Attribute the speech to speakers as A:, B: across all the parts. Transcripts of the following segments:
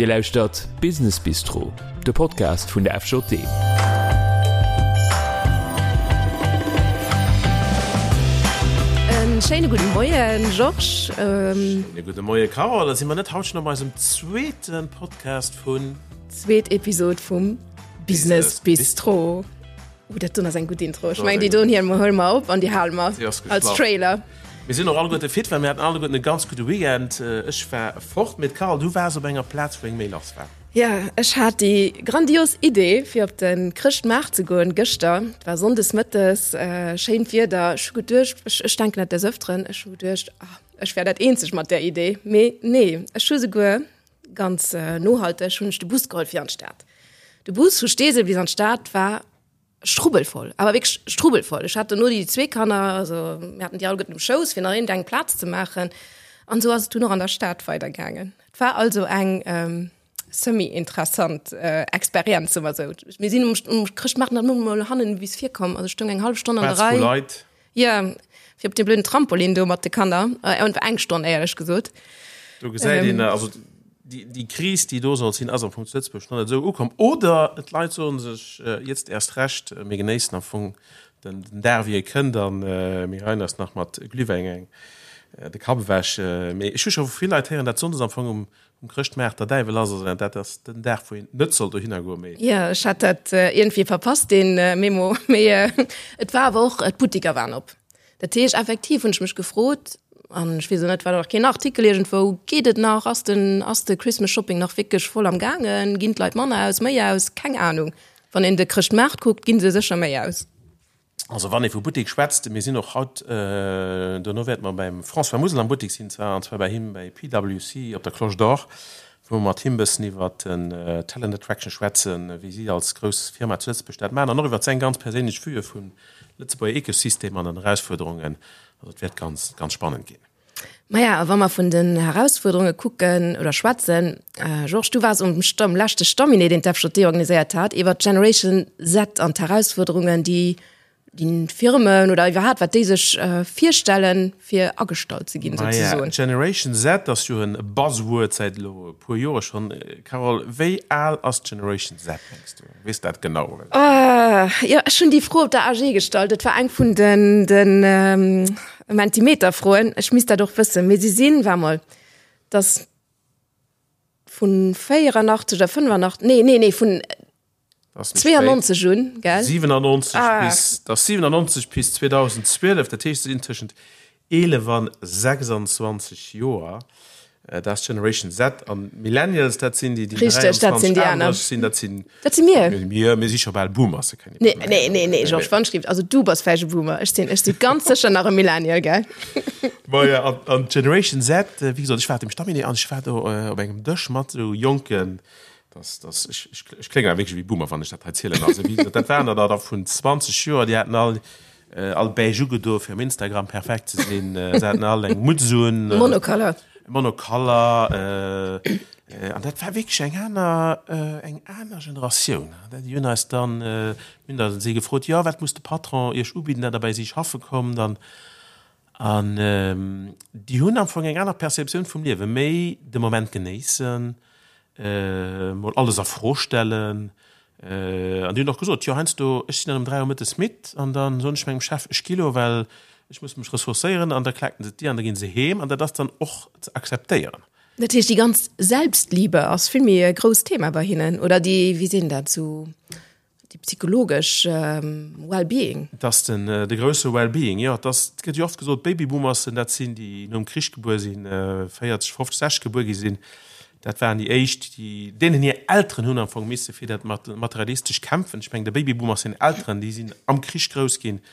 A: Dir lauschtert Business Bistro, de Podcast vun der FJD.
B: En schéine gudde Moien, Georges.
C: Schéine gudde Moie, Carole. Da si mer net haut schonn op eisem zweete Podcast vun.
B: Zweet Episod vum Business Bistro. Oh, dat doen ass eng gutt Intro. Ech mengen, déi doen hier huele mer op an déi hale mer als Trailer.
C: Mir sinn och alleguerte fit, well mir haten alleguerten e ganz gudde Weekend. Ech war fort, mee d'Carole, du waars op enger Plaz, wou eng méi lass war.
B: Jo, ech hat déi grandios Idee, fir op de Chrëschtmaart ze goen gëschter. Et war sonndes mëttes, schéint Wieder. Ech hu geduecht, ech, ech denken dat des Ëfteren, ech hu geduecht, ah, ech wär dat eenzeg mat där Idee. Mee nee, ech hu souguer ganz nohalteg hunn ech de Bus geholl fir an d'Stad. De Bus vu Steesel bis an d'Stad war strubbelvoll, awer wierklech strubbelvoll. Ech hat dono déi zwee Kanner, also mir haten déi alleguerten um Schouss, fir nach iergendeng eng Plaz ze maachen. An esou ass et dunn och an der Stad weidergaangen. Et war also eng semi-interessant Experienz, soe mer esou. Mir sinn um um Chrëschtmaart nach net emol hannen bis vir komm, also ech stoung eng hallef Stonn an der
C: Plaz
B: Rei.
C: vu Leit.
B: Jo, fir op deem blöden Trampolin do mat de Kanner. Äh, eng Stonn, éierlech gesot.
C: Do gesäit een, also déi, déi Kris, déi do soll sinn, ass am Fong zu Lëtzebuerg nach net esou ukomm. Oder d'Leit soe sech, jetzt erst recht, mir genéissen am Fong den, den Dag, wéi e kënnt, a mir geheien eis nach mat Glühwäin eng de Kapp ewech. Mee ech hu scho vu vill Leit héieren, dat sonndes am Fong um Um Chrëschtmaart der Däiwel ass, also dat ass den Dag wou een net soll dohinner goen,
B: mee. Jo, ech hat dat iergendwéi verpasst deen Memo, mee et war awer och, d'Buttiker waren op. Dat heescht effektiv hunn ech mech gefrot, an ech weess och net, war nach keen Artikel iergendwou, geet et nach, ass den, ass de Christmas Shopping nach wierklech voll am gaangen, ginn d'Leit manner aus, méi aus, keng Anung. Wann een de Chrëschtmaart kuckt, ginn se sécher méi aus.
C: Also wann ee vu Buttek schwätzt, mir sinn och haut, dono wäerte mer beim François Musel am Buttek sinn, zwar an zwar bei him bei PwC op der Cloche d'Or, wou mer mat him e bëssen iwwert den Talent Attraction schwätzen, wéi si als grouss Firma zu Lëtzebuerg dat maachen an och iwwert seng ganz perséinlech Vue vum Lëtzebuerger Ecosystem an den Erausfuerderungen. Also et wäert ganz, ganz spannend ginn.
B: Maja, a wa mer vun den Herausfuerderunge kucken oder schwätzen, Georges, du waars um Stamm, leschte Stamminee, deen d'FJD organiséiert hat, iwwer d'Generation Z an d'Herausfuerderungen, déi déi Firmen oder iwwerhaapt, wat déi sech virstellen, fir agestallt ze ginn,
C: Maja,
B: souzesoen.
C: Generation Z ass jo e Buzzword säit elo e puer Jore schonn. Carole, wéi al ass d'Generation Z, mengs du? Weess dat genau?
B: Jo, ech hunn déi Fro op der AG gestallt. Et war eng vun den, den Mentimeter-Froen. Ech misst dat och wëssen. Mee si sinn, war mol, dass vun 84 oder 85, nee, nee, nee, vun 92 un,
C: gell? 97 ah. bis, das 97 bis 2012, dat heescht, se sinn tëschent 11 an 26 Joer. Dat ass Generation Z an Millennials, dat sinn déi, déi
B: Richteg, dat sinn déi aner.
C: sinn, dat sinn
B: Dat si mir.
C: Mir, mir si scho bal Boomers.
B: Nee, nee, nee, nee, Georges, wann schrift, also du bass vläicht e Boomer, ech sinn, ech si ganz sécher nach e Millennial, gell?
C: Maja, an, an Generation Z, wéi gesot, ech war op dem Stamminee an ech war do op engem Dësch mat esou Jonken, das, das, ech, ech, ech kléngen awer wierklech wéi Boomer, wann ech dat hei zielen. Also wéi gesot, dat waren der da vun 20 Joer, déi haten all All beige ugedo fir um Instagram perfekt ze sinn. Se haten all eng Mutz un.
B: Monocolor.
C: Monocolor. An dat war wierklech eng aner, eng aner Generatioun. Déi hunn eis dann, mir hunn da si gefrot, jo wat muss de Patron iech ubidden, datt der bei si schaffe kommt? An, an déi hunn am Fong eng aner Perceptioun vum Liewen, méi de Moment genéissen, mol alles a Fro stellen. An déi hunn och gesot, jo heiansdo, ech sinn dann um 3 Auer mëttes midd an da soen ech mengem Chef, ech gi lo, well ech muss mech ressourcéieren an da klaken se d'Dier an da gi se heem an dat ass dann och ze akzeptéieren.
B: Dat heescht, déi ganz Selbstliebe ass vill méi e grousst Thema bei hinnen oder déi, wéi seet een dat, sou déi psychologesch Well-being?
C: Et ass den, de grousse Well-being, jo. Et ass, et gëtt jo oft gesot, d'Babyboomersen, dat sinn déi nom Krich gebuer sinn, 40, 50, 60 gebuer gi sinn. Dat waren déi éischt, déi, deenen hir Elteren hunn am Fong misse fir dat Materialistesch kämpfen. Ech mengen, de Babyboomers seng Elteren, déi sinn am Krich grouss ginn,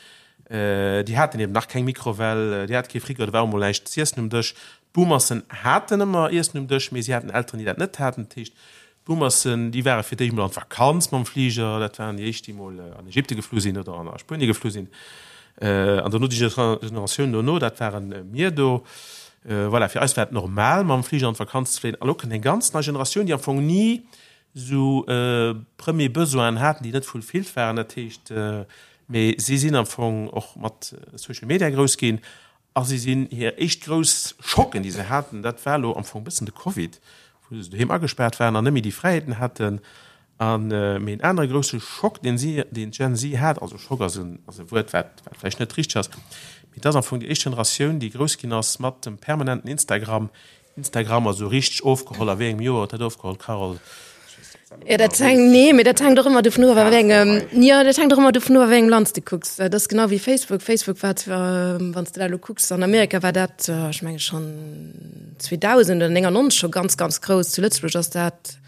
C: déi haten eben nach keng Mikrowell, déi hate kee Frigo, do war och mol näischt z'iessen um Dësch. D'Boomersen haten ëmmer Iessen um Dësch, mee si haten Elteren, déi dat net haten. Dat heescht, D'Boomersen, déi ware fir d'éischt mol an d'Vakanz mam Fliger, dat waren déi éischt, déi mol an Ägypte geflu sinn oder an a Spuenie geflu sinn. An dono déi Generatioun dono, dat ware mir do. Voilà, fir eis war et normal, mam Fliger an d'Vakanz ze fléien. A lo kënnt eng ganz nei Generatioun, déi am Fong ni esou Premier Besoinen haten, déi net fulfilled waren. Dat heescht, mee si sinn am Fong och mat Social Media grouss ginn A si sinn hir éischt grouss Schocken, déi se haten, dat war elo am Fong e bëssen de Covid, Wou se doheem agespaart waren an net méi déi Fräiheeten haten. An, mee en anere grousse Schock, deen si, deen d'Gen Z hat, also Schock ass en, ass e Wuert, wat, wat vläicht net richteg ass, mee et ass am Fong déi éischt Generatioun, déi grouss ginn ass mat dem permanenten Instagram. Instagram ass esou richteg ofgeholl. A wéi engem Joer huet dat ofgeholl, Carole?
B: Jo, dat hänkt, nee, mee dat hänkt och ëmmer dovun of, a wéi engem, jo, dat hänkt och ëmmer dovun of, a wéi engem Land s de kucks. Dat ass genau wéi Facebook. Facebook war zwar, wann s de dat elo kucks, an Amerika war dat, ech menge schonn 2000 oder 99 scho ganz, ganz grouss. Zu Lëtzebuerg ass dat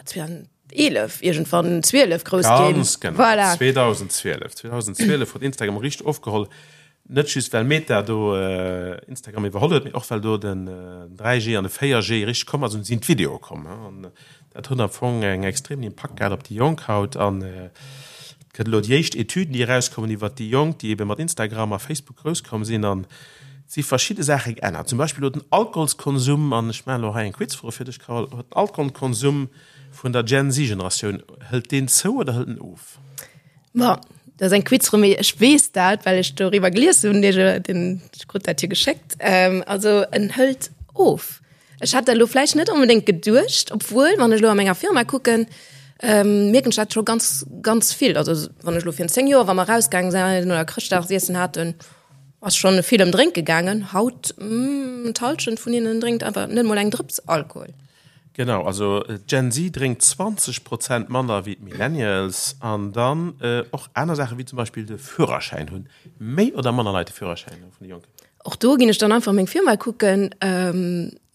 B: 2011 iergendwann, 12 grouss
C: ginn. Ganz genau, voilà. 2012. 2012 huet Instagram richteg ofgeholl. Net just well Meta do Instagram iwwerholl huet, mee och well do den 3G an de 4G richteg komm ass an sinn d'Videoe komm. An dat huet am Fong eng extremen Impakt gehat op déi Jonk haut. An et gëtt elo déi éischt Etüden, déi erauskommen iwwert déi Jonk, déi ebe mat Instagram a Facebook grouss komm sinn. An et si verschidde Saache geännert. Zum Beispill huet den Alkoholskonsum, an ech maachen elo hei eng Quizfro fir dech, Carole, huet den Alkoholkonsum vun der Gen Z-Generatioun, hëlt deen zou oder hëlt en of?
B: Bon, dat ass eng Quizfro, mee ech weess dat, well ech doriwwer gelies hunn, den, ech krut dat jo geschéckt. Ähm, also en hëlt of. Ech hat dat elo vläicht net onbedéngt geduecht, obwuel, wann ech elo a menger Firma kucken, ähm, mierken ech dat scho ganz, ganz vill. Also wann ech elo virun 10 Joer, wa mer erausgaange sinn oder Chrëschtdagsiessen haten, ass schonn vill ëm Drénke gaangen. Haut, d'Hallschent vun hinnen drénkt einfach net mol eng Drëps Alkohol.
C: Genau, also d'Gen Z drénkt 20 Prozent manner wéi d'Millennials. An dann och aner Saachen, wéi zum Beispill de Führerschäin. Hunn méi oder manner Leit de Führerschäin vun de Jonken?
B: Och do ginn ech dann einfach meng Firma kucken,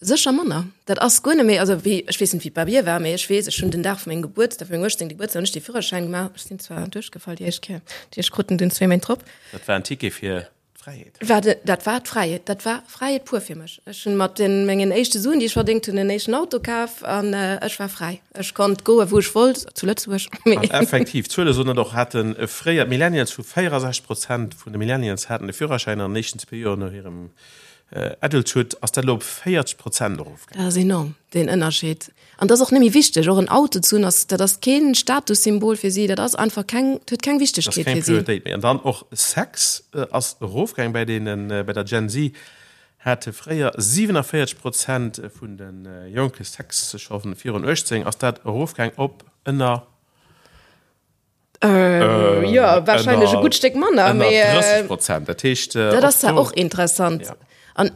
B: sécher manner. Dat ass guer net méi, also wéi, ech weess net wéi et bei mir war, mee ech weess, ech hunn den Dag vu mengem Gebuertsdag, vu mengem 18. Gebuertsdag hunn ech de Führerschäin gemaach. Ech sinn zwar duerchgefall déi éischt Kéier, déi ech krut en dunn zwéi Méint drop.
C: Dat war en Ticket fir D'Fräiheet.
B: War de, dat war d'Fräiheet. Dat war Fräiheet pur fir mech. Ech hunn mat den, mengen éischte Suen, déi ech verdéngt hunn, en éischten Auto kaf an ech war fräi. Ech konnt goe wou ech wollt, zu Lëtzebuerg.
C: An effektiv, d'Zuele soen et och, hate fréier d'Millennials vu 64 Prozent vun de Millennials haten de Führerschäin an den éischten zwee Joer no hirem Adulthood, ass dat elo op 40 Prozent erofgaangen.
B: Dat ass enorm, deen Ënnerscheed. An dat ass och net méi wichteg. Och en Auto ze hunn, ass, dat ass kee Statussymbol fir si. Dat ass einfach keng, dat huet keng Wichtegkeet fir si.
C: Dat ass keng Prioritéit méi. An dann och Sex ass erofgaang bei deenen, bei der Gen Z hate fréier 47 Prozent vun de Jonke Sex scho virun 18, ass dat erofgaang op ënner.
B: Äh, ja, wahrscheinlech e gutt Stéck manner.
C: Mee, 30 Prozent. Dat heescht,
B: äh, dat ass ja och interessant. Ja. An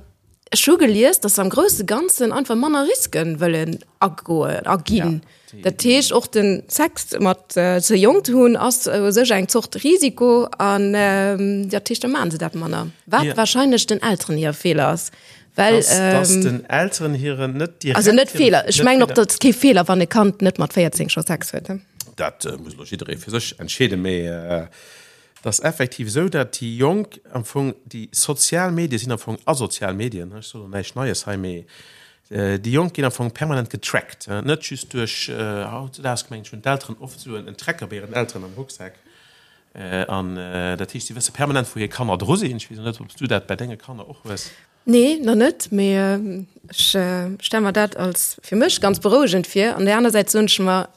B: ech hu gelies, dass am grousse Ganzen einfach manner Risken wëllen agoen, aginn. Ja, dat heescht och den Sex mat äh, ze jonk ze hunn ass u sech eng Zort Risiko an ähm, dat heescht, da maachen se dat manner. Wat ja. wahrscheinlech den Elteren hir Feeler ass.
C: Well, dass, ähm, dass den Elteren hiren net
B: direkt also net Feeler. Ech mengen och, dat kee Feeler, wann e Kand net mat 14 scho Sex huet.
C: Dat muss elo jidderee fir sech entscheeden, mee et ass effektiv esou, dat déi Jonk am Fong, déi sozial Medie sinn am Fong asozial Medien, ech soen elo näischt Neies hei, mee déi Jonk ginn am Fong permanent getrackt, net just duerch, hautzedaags mengen ech hunn d'Elteren oft esou en Tracker bei hiren Elteren am Rucksak an dat heescht, si wësse permanent wou hir Kanner dru sinn. Ech weess elo net, ob s du dat bei denge Kanner och hues.
B: Nee, nach net, mee ech stelle mer dat als fir mech ganz berouegend vir. An där aner Säit soen ech mer,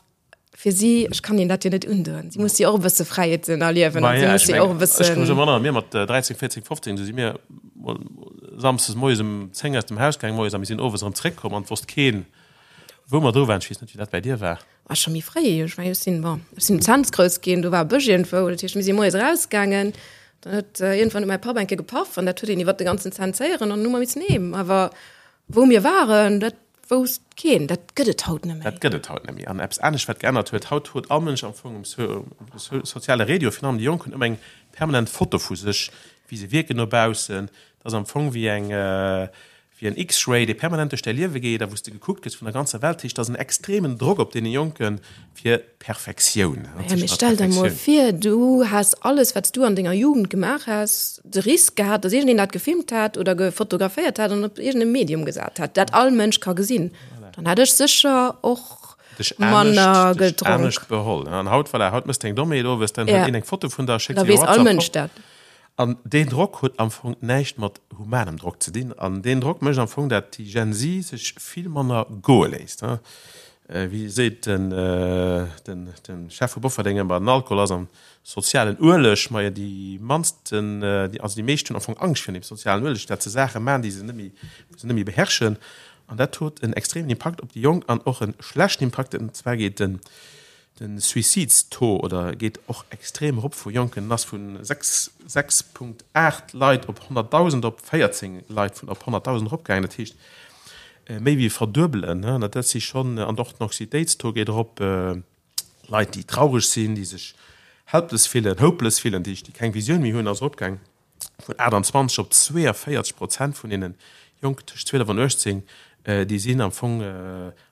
B: fir si, ech kann hinnen dat jo net undoen, si musse jo och e bësse Fräiheeten erliewen
C: an si musse jo och e bëssen. Ech ka mech erënneren, mir mat 13, 14, 15, du si mir mol samsdes moies um 10 aus dem Haus gaang moies a mir sinn owes erëm zréckkomm an et wosst keen, wou mer dru waren. Ech weess net, wéi dat bäi dir war.
B: Ah, scho méi fréi. Ech mengen, ech sinn, bon, ech sinn um Cents grouss ginn, do war e Bësch iergendwou, dat heescht, mir si moies erausgaangen, dann huet iergendwann huet mäi Papp eng Kéier gepaff an dat huet een iwwer de ganzen Cents héieren an dann hu mer missen heem. Awer wou mir waren, dat Wousst keen. Dat gëtt et haut net méi.
C: Dat gëtt et haut net méi. An eppes anescht, wat geännert huet, Haut huet all Mënsch am Fong um soziale Redio, virun allem déi Jonk, hunn ëmmer eng permanent Foto vu sech, wéi se wierken no baussen. Dat ass am Fong wéi eng, wéi en X-Ray, dee permanent duerch däi Liewe geet a wou s de gekuckt gëss vun der ganzer Welt. Dat heescht, dat ass en extremen Drock op deene Jonke fir Perfektioun.
B: Maja, mee stell der mol vir, du häss alles, wat s du an denger Jugend gemaach häss, de Risk gehat, dass iergendeen dat gefilmt hätt oder gefotograféiert hätt an op iergendem Medium gesat hätt, dat all Mënsch ka gesinn. Dann hätt ech sécher och
C: manner gedronk. Dech anescht beholl. An haut, voilà, haut mëss de eng Dommheet owes, dann huet een eng Foto vun der,
B: schéckt se iwwer WhatsApp. Da weess all Mënsch dat.
C: An deen Drock huet am Fong näischt mat humanem Drock ze dinn. An deen Drock mécht am Fong, dat déi Gen Z sech vill manner goe léisst. Wéi seet den Chef vu Bofferdeng ëmmer, den Alkohol ass am sozialen Ueleg. Majo, déi mannsten, also déi meescht hunn am Fong Angscht virun deem sozialen Ueleg, dat se Saache maachen, déi se net méi, wou se net méi beherrschen. An dat huet en extremen Impakt op déi Jonk an och e schlechten Impakt. An zwar geet den, de Suizidstaux oder geet och extrem erop vu Jonken en ass vu 6, 6,8 Leit op 100.000 op 14 Leit vun op 100.000 eropgaangen. Dat heescht méi wéi verduebelen. An dat si schonn, an och den Anxietéitstaux geet erop. Leit, déi traureg sinn, déi sech helpless fillen, hopeless fillen, déi keng Visioun méi hunn, ass eropgaang vun 28 op 42 Prozent vun deene Jonken tëscht 12 an 18, déi sinn am Fong,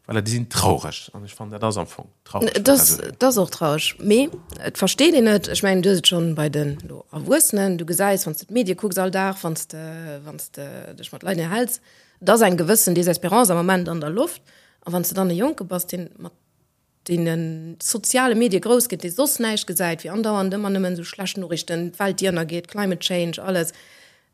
C: voilà, déi sinn traureg. An ech fannen, dat ass am Fong
B: traureg. Dat ass, dat ass och traureg, mee et versteet een et. Ech mengen, du hues et schonn bei den elo Erwuessenen, du gesäis, wann s de d'Medie kucks all Dag, wann s de, wann s de dech mat Leit ënnerhäls, et ass eng gewëssen Désespérance am Moment an der Loft. A wann s de dann e Jonke bass, deen mat deene soziale Medie grouss gëtt, dee soss näischt gesäit wéi andauernd ëmmer nëmmen esou schlecht Noriichten, d'Welt déi ënnergeet, Climate Change, alles.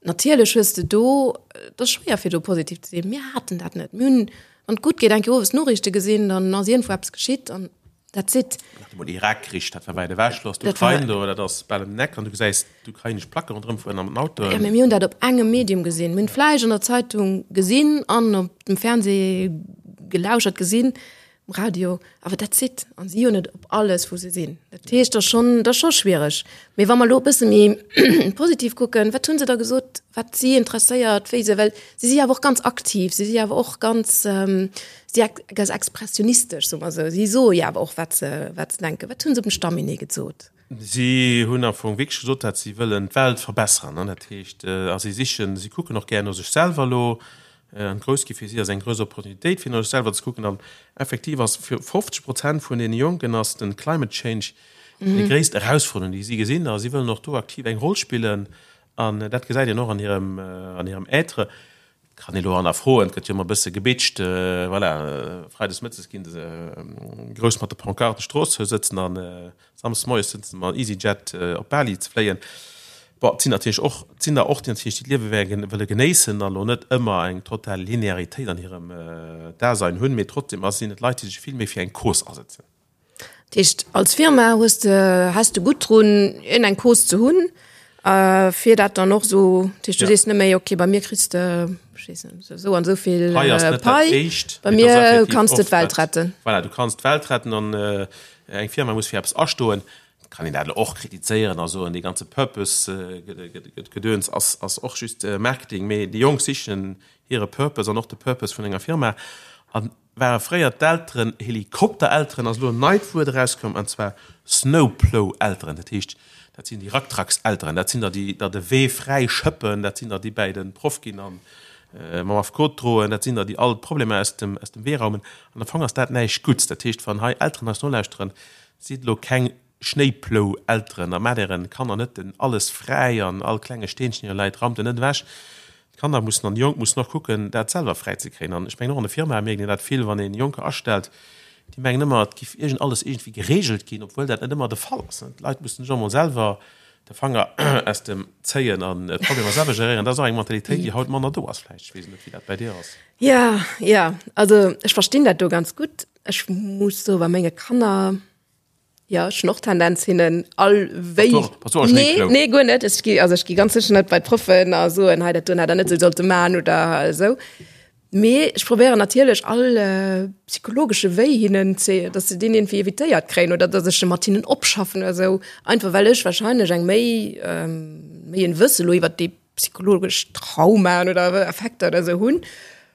B: Natierlech hues de do, et ass schwéier fir do positiv ze sinn. Mir haten dat net. Mir hunn, wann et gutt geet, eng Kéier owes d'Noriichte gesinn, dann ass iergendwou eppes geschitt an that's it.
C: Nach emol Irak-Krich, dat war wäit ewech, lo ass d'Ukrain do, dat ass bal ëm den Eck an du gesäis d'ukrainesch Placke ronderëm fueren an den Autoen.
B: Jo, mee mir hunn dat op engem Medium gesinn. Mir hunn vläicht an der Zeitung gesinn an op dem Fernseh gelauschert gesinn. Um Radio, awer that's it. An si hunn et op alles, wou se sinn. Dat heescht, dat ass schonn, dat ass scho schwiereg. Mee wa mer elo e bësse méi positiv kucken, wat hu se da gesot, wat si interesséiert, wéi se, well si si awer och ganz aktiv, si si awer och ganz, si ganz expressionistesch, soe mer esou. Si soe jo awer och, wat se, wat se denken. Wat hu se op dem Stamminee gesot?
C: Si hunn am Fong wierklech gesot, datt si wëllen d'Welt verbessern. An dat heescht, a si sichen, si kucken och gär no sech selwer elo. An grouss gi fir si ass eng grouss Opportunitéit, fir no sech selwer ze kucken. An effektiv ass fir 50 Prozent vun deene Jonken ass den Climate Change déi gréisst Erausforderung, déi si gesinn. A si wëllen och do aktiv eng Roll spillen. An dat gesäit een och an hirem, an hirem Être. Kann ee lo hannerfroen, et gëtt jo ëmmer e bësse gebitcht, voilà, freides mëttes ginn se grouss mat de Pancarten d'Strooss zou sëtzen an samsdes moies sëtzen se mam EasyJet op Bali ze fléien. Bon, et sinn natierlech och, et sinn der och, déi natierlech déi d'Liewe wëlle genéissen a lo net ëmmer eng total Linearitéit an hirem Dasein hunn, mee trotzdem ass sinn et Leit, déi sech vill méi fir eng Cause asetzen.
B: Dat heescht, als Firma hues de, häss de gutt drun, iergend eng Cause ze hunn, fir dat dann och esou, dat heescht, du sees net méi, okay, bei mir kriss de, ech weess net, esou an esou vill
C: Pai ass net dat
B: Pai,
C: Éischt,
B: bei
C: mee et ass
B: mir
C: effektiv
B: kanns de
C: oft
B: d'Welt
C: dat,
B: retten.
C: voilà, du kanns d'Welt retten an eng Firma muss fir eppes astoen. Et kann een dat elo och kritizéieren a soen, dee ganze Purpose-Gedöns ass, ass och just Marketing, mee déi Jonk sichen hire Purpose an och de Purpose vun enger Firma. An Ware fréier d'Elteren Helikopterelteren, ass elo en neit Wuert erauskomm, an zwar Snowplow-Elteren. Dat heescht, dat sinn déi Racktrackselteren, dat sinn der, déi der de Wee fräi schëppen, dat sinn der, déi bäi de Proff ginn a mam Affekot droen, dat sinn der, déi all d'Problemer aus dem, aus dem Wee raumen. An am Fong ass dat näischt Gutts. Dat heescht, wann hei Elteren eis nolauschteren, sidd elo keng Schnéiplou-Elteren a maacht ären Kanner net den alles fräi an all klenge Steenchen, deen do läit, raumt en net ewech. D'Kanner mussen an déi Jonk mussen och kucken, dat selwer fräi ze kréien. An ech mengen, och an de Firmae mierkt een dat vill, wann een Jonker astellt, déi mengen ëmmer, et giff iergend alles iergendwéi geregelt ginn, obwuel dat net ëmmer de Fall ass. D'Leit mussen sech och emol selwer de Fanger aus dem zéien an d'Problemer selwer geréieren. Dat ass och eng Mentalitéit, déi haut manner do ass vläicht. Ech weess net, wéi dat bäi dir ass.
B: Jo, jo, also ech verstinn dat do ganz gutt. Ech muss soen, bei menge Kanner, Jo, ech hunn och Tendenz hinnen all wéi.
C: Bass du och e
B: Nee,
C: Schnéiplou?
B: nee, guer net. Ech gi, also ech gi ganz sécher net bei d'Proffen a soen, hei dat doen hätt der net esou sollte man oder esou. Mee ech probéieren natierlech all psychologesche Wéi hinnen ze, datt se deen iergendwéi evitéiert kréien oder datt ech e mat hinnen opschaffen oder esou. Einfach well ech wahrscheinlech eng méi, méi en Wësse lo iwwert déi psychologesch Traumaen oder Effekter oder esou hunn,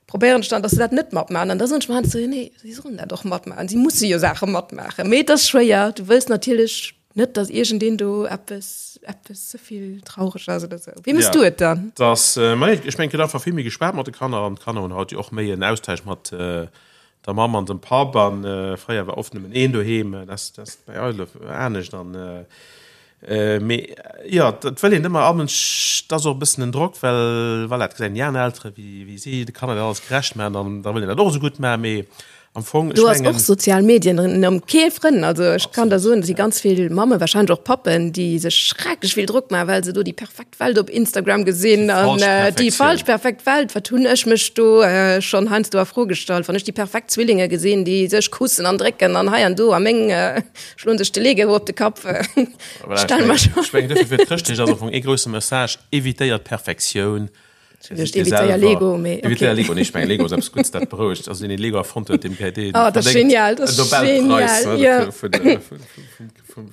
B: probéieren ech dann, dass se dat net matmachen. An da soen ech mer heiansdo, nee, si sollen dat och matmachen, si musse jo Saache matmaachen. Mee et ass schwéier, du wëlls natierlech net, dass iergendeen do eppes, eppes ze vill traureg ass oder esou. Wéi méchs du et dann?
C: Dass, ma nee, ech mengen, et gëtt einfach vill méi geschwat mat de Kanner an d'Kanner hunn haut jo och méi en Austausch mat der Mamm an dem Papp an fréier war oft nëmmen een doheem, dat ass bei eis elo anescht an Mee jo, et wëll een ëmmer all Mënsch, et ass och e bëssen en Drock, well voilà, et gesäit een déi aner Eltere wéi wéi si de Kanner dat alles gerecht maachen an da wëll een dat och esou gutt maachen. Mee am Fong, ech
B: Do ass och
C: mengen.
B: sozial Medien ëm kee Frënn. Also ech kann der soen, et si ganz vill Mammen, wahrscheinlech och Pappen, déi sech schrecklech vill Drock maachen, well se do déi perfekt Welt op Instagram gesinn
C: Déi
B: an
C: falsch
B: déi
C: Perfektioun.
B: falsch perfekt Welt. Wat hunn ech mech do schonn heiansdo a Fro gestallt, wann ech déi perfekt Zwillinge gesinn, déi sech kussen an drécken an hei an do a meng Schloen sech de Lego op de Kapp.
C: Voilà, ech mengen, ech mengen, dofir fir d'Chrëschtdeeg ass am Fong ee grousse Message, Evitéiert d'Perfektioun.
B: Ech hunn geduecht, evitéier Lego,
C: mee okay. Evitéier Lego, nee, ech mengen Lego ass eppes Guddes, dat berouegt. Also deen deen Lego erfonnt huet, deem kréit dee
B: Oh, dat ass genial, dat ass genial,
C: jo. Vun der, vum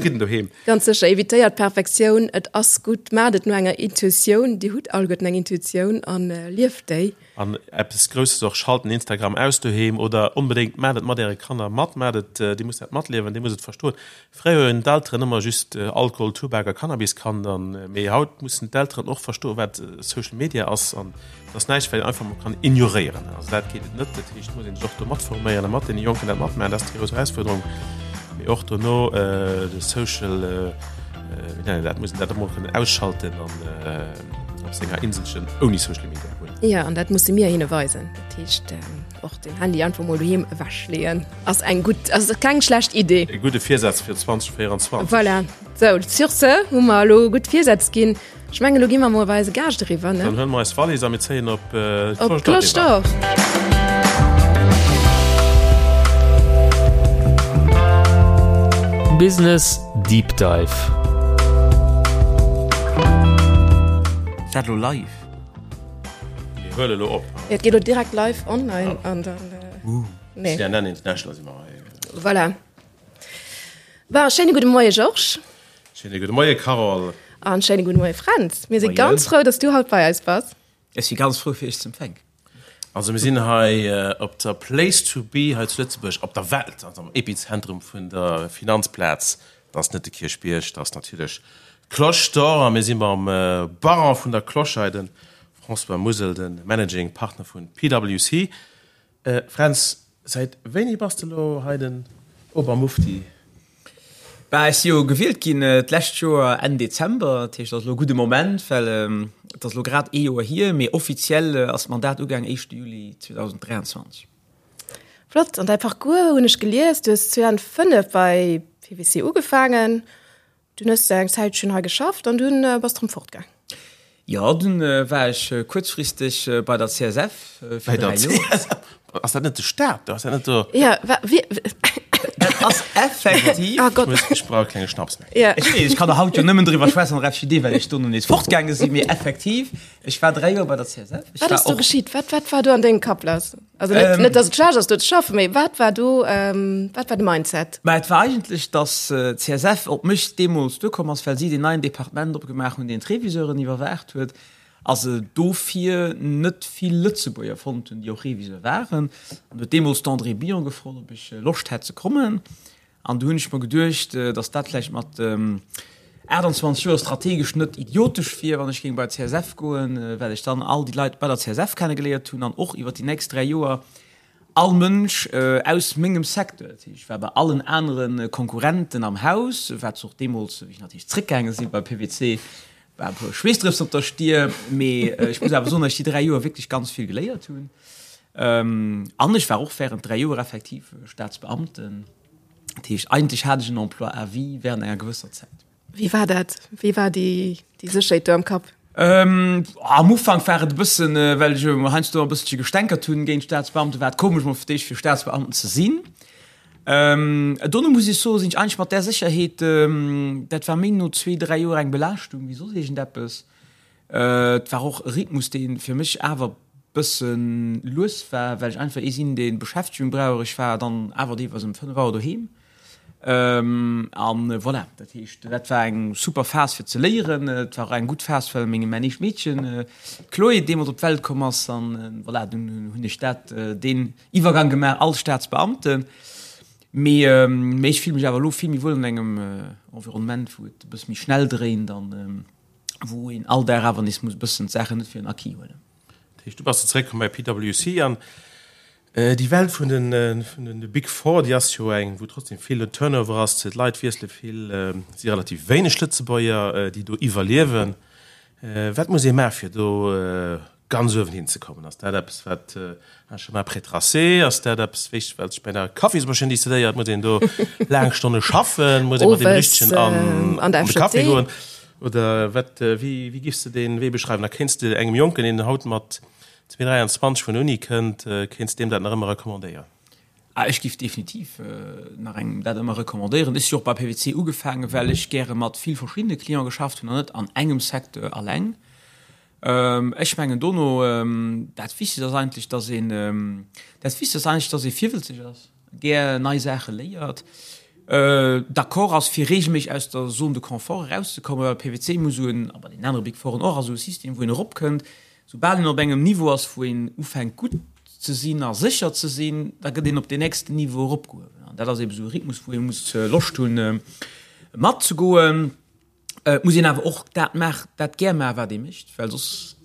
C: Fridden doheem.
B: Ganz sécher, evitéiert d'Perfektioun, et ass gutt, maacht et no enger Intuitioun, Dir hutt alleguerten eng Intuitioun an lieft déi.
C: An eppes Grousses och, schalt den Instagram aus doheem oder onbedéngt maacht et mat äre Kanner mat, maacht et, dir musst dat matliewen, dir musst et verstoen. Fréier hunn d'Elteren ëmmer just Alkohol, Tubak a Cannabis kannt an mee haut mussen d'Elteren och verstoen, wat Social Media ass an et ass näischt, wat een einfach mol kann ignoréieren. Also dat geet et net. Dat heescht, et muss een sech och do matforméieren a mat deene Jonken dat matmaachen. Dat ass déi grouss Erausfuerderung. Mee och dono de Social, wéi nennt een dat, muss een dat emol kënnen ausschalten an op senger Inselchen ouni Social Media
B: hunn. Jo, an dat musse mir hinne weisen. Dat heescht, och den Handy einfach mol doheem ewechleeën ass eng gutt, ass keng schlecht Idee.
C: E gudde Virsaz fir 2024.
B: Voilà. Sou, sur ce hu mer elo gutt Virsätz ginn. Ech mengen, elo gi mer mol bei eise Gaascht eriwwer, ne?
C: Dann huele mer eis Wallis a mir zéien op
B: Op d'Cloche d'Or.
A: Business Deep Dive.
D: Ass dat elo live?
C: Mir huele elo op.
B: Jo, et geet elo direkt live online an dann.
C: Nee. CNN International si mer hei.
B: Voilà. Bon, schéine gudde Moie Georges.
C: Schéine gudde Moie Carole.
B: An schéine gudde Moie Fränz. Mir si ganz frou, dass du haut bei eis bass.
D: Ech si ganz frou fir iech ze empfänken.
C: Also mir sinn hei op der Place to be hei zu Lëtzebuerg, op der Welt, also am Epizentrum vun der Finanzplaz. Dat ass net de Kierchbierg, dat ass natierlech d'Cloche d'Or. A mir si mam Baron vun der Cloche hei, de François Musel, de Managing Partner vu PwC. Fränz, säit wéini bass de elo hei den Obermufti?
D: Bah, ech si jo gewielt ginn d'lescht Joer Enn Dezember, dat heescht, et ass elo e gudde Moment, well et ass elo grad ee Joer hier, mee offiziell ass d'Mandat ugaang éischte Juli 2023.
B: Flott! An däi Parcours hunn ech gelies, du hues 2005 bei PwC ugefaangen, Dunn hues de eng Zäitchen hei geschafft an dunn bass de rëm fortgaang.
D: Jo, dunn war ech kuerzfristeg bei der CSF
C: fir 3 Joer. Ass dat net de Staat do? Ass dat net do?
B: Jo, wa wie?
D: Dat ass effektiv.
B: Ah Gott.
C: Ech brauch e klenge Schnaps
D: méi. Jo. Ech weess, ech kann der haut jo nëmmen driwwer schwätzen an der FJD, well ech dono nees fortgaange sinn, mee effektiv, ech war 3 Joer bei der CSF.
B: Ech Wat ass do geschitt? Wat, wat war do an dengem Kapp lass? Also net, net dass et schlecht ass do ze schaffen, mee wat war do, wat war de Mindset?
D: Mä et war eigentlech, dass d'CSF op mech deemools duerkomm ass, well si deen neien Departement opgemaach hunn, deen d'Reviseuren iwwerwaacht huet, a se dofir net vill Lëtzebuerger fonnt hunn, déi och Reviseur waren. An huet deemools d'Andrée Billon gefrot, ob ech Loscht hätt ze kommen. An du hunn ech mer geduecht, datt dat vläicht mat 28 Joer strategesch net idiotesch wier, wann ech géing bei d'CSF goen, well ech dann all déi Leit bei der CSF kennegeléiert hunn an och iwwer déi nächst 3 Joer all Mënsch aus mengem Secteur. Dat heescht, ech war bei allen anere Konkurrenten am Haus, wat se och deemools, wéi ech natierlech zréckgaange sinn bei PwC, war e puer Schweessdrëpsen op der Stier. Mee ech muss awer soen, datt ech déi 3 Joer wierklech ganz vill geléiert hunn. An ech war och während 3 Joer effektiv Staatsbeamten. Dat heescht, eigentlech hat ech en Emploi à vie während enger gewësser Zäit.
B: Wéi war dat? Wéi war déi Sécherheet do am Kapp?
D: Am Ufank war et e bëssen, well ech jo heiansdo e bësselche gestänkert hunn géint Staatsbeamten, war et komesch mol fir d'éischt fir Staatsbeamten ze sinn. Dono muss ech soen, sinn ech eigentlech mat där Sécherheet, dat war méi no zwee, dräi Joer eng Belaaschtung wéi soss iergendeppes. Et war och e Rhythmus, dee fir mech awer bësse lues war, well ech einfach ee sinn, dee Beschäftegung brauch. Ech war dann awer deelweis ëm 5 Auer doheem. An voilà, dat heescht, dat war eng super Phas fir ze léieren. Et war och eng gutt Phas, well meng, mäin éischt Meedchen, d'Chloé, deemools op d'Welt komm ass. An voilà, dunn hunn ech dat, deen Iwwergang gemaach als Staatsbeamten. Mee ech fille mech awer elo vill méi wuel an engem Environnement, wou et e bësse méi schnell dréint an wou een all Dag awer nees muss e bëssen d'Saachen net fir en Acquis huelen.
C: Dat heescht, du bass du zeréckkomm bei PwC an déi Welt vun den, vun den Big Four, déi ass jo eng, wou trotzdem vill Turnover ass, d'Leit wiessele vill, et si relativ wéineg Lëtzebuerger, déi do iwwerliewen. Wat muss ee maache fir do ganz uewen hinzekommen? Ass dat eppes, wat un chemin prétracé? Ass dat eppes, wéi wat sech bei der Kaffismaschinn decidéiert? Muss een do laang Stonne schaffen? Muss ee mat deem Richtegen an an de Café goen? Oder wat, wéi, wéi giffs de dee Wee beschreiwen? A kéints de engem Jonken, deen haut mat 23 vun der Uni kënnt, kéints deem dat nach ëmmer recommandéieren?
D: Ah, ech giff definitiv nach engem dat ëmmer recommandéieren. Ech si och bei PwC ugefaangen, well ech gäre mat vill verschiddene Cliente geschafft hunn an net an engem Secteur alleng. Ech mengen dono, dat Wichtegst ass eigentlech, dass een, dat Wichtegst ass eigentlech, dass ee virwëlzeg ass, gär nei Saache léiert, d'accord ass fir regelméisseg aus der Zone de confort erauszekommen, well PwC muss esou en, a bei deenen anere Big Fouren och, ass esou e System wou een eropkënnt, soubal een op engem Niveau ass wou een ufänkt gutt ze sinn a sécher ze sinn, da gëtt een op deen nächsten Niveau eropgehuewen. An dat ass eebe esou e Rhythmus wou ee muss Loscht hunn matzegoen. Et muss een awer och dat maachen, dat gär maachen, wat ee mécht, well soss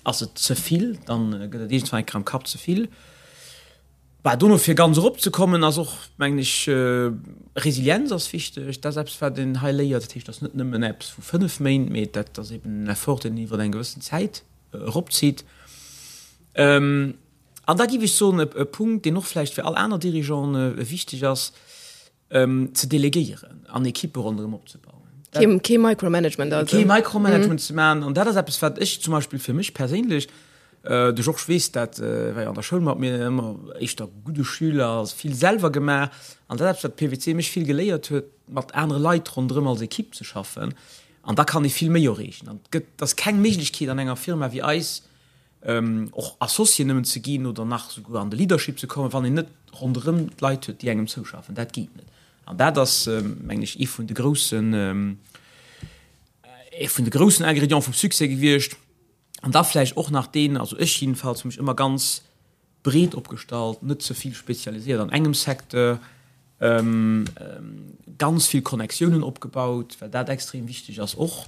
D: ass et ze vill, dann gëtt et iergendwann eng Kéier am Kapp ze vill. Bah, dono fir ganz eropzekommen ass och, mengen ech, Resilienz ass wichteg. Dat ass eppes, wat een hei léiert. Dat heescht, dat ass net nëmmen eppes vu 5 Méint, mee dat ass eben en Effort, deen een iwwer eng gewëssen Zäit eropzitt. An da géif ech soen, e Punkt, deen och vläicht fir all aner Dirigeanten wichteg ass, ze delegéieren an Ekippe ronderëm opzebauen.
B: Kee, kee Micromanagement
D: also. Kee Micromanagement mm. ze maachen. An dat ass eppes, wat ech zum Beispill fir mech perséinlech, äh, de Georges weess dat, äh, war jo an der Schoul mat mir ëmmer éischter gudde Schüler, ass vill selwer gemaach. An dat ass eppes, wat PwC mech vill geléiert huet, mat anere Leit ronderëm als Ekipp ze schaffen. An da kann ee vill méi erreechen. An et gëtt, et ass keng Méiglechkeet an enger Firma wéi eis, och Associé nëmmen ze ginn oder nach souguer an de Leadership ze kommen, wann een net ronderëm d'Leit huet, déi engem zouschaffen. Dat geet net. An dat ass, mengen ech, ee vun de groussen, ee vun de groussen Ingrédients vum Succès gewiescht. An da vläicht och nach deen, also ech jedenfalls hu mech ëmmer ganz breet opgestallt, net ze vill spezialiséiert an engem Secteur, ganz vill Connectiounen opgebaut, well dat extrem wichteg ass och.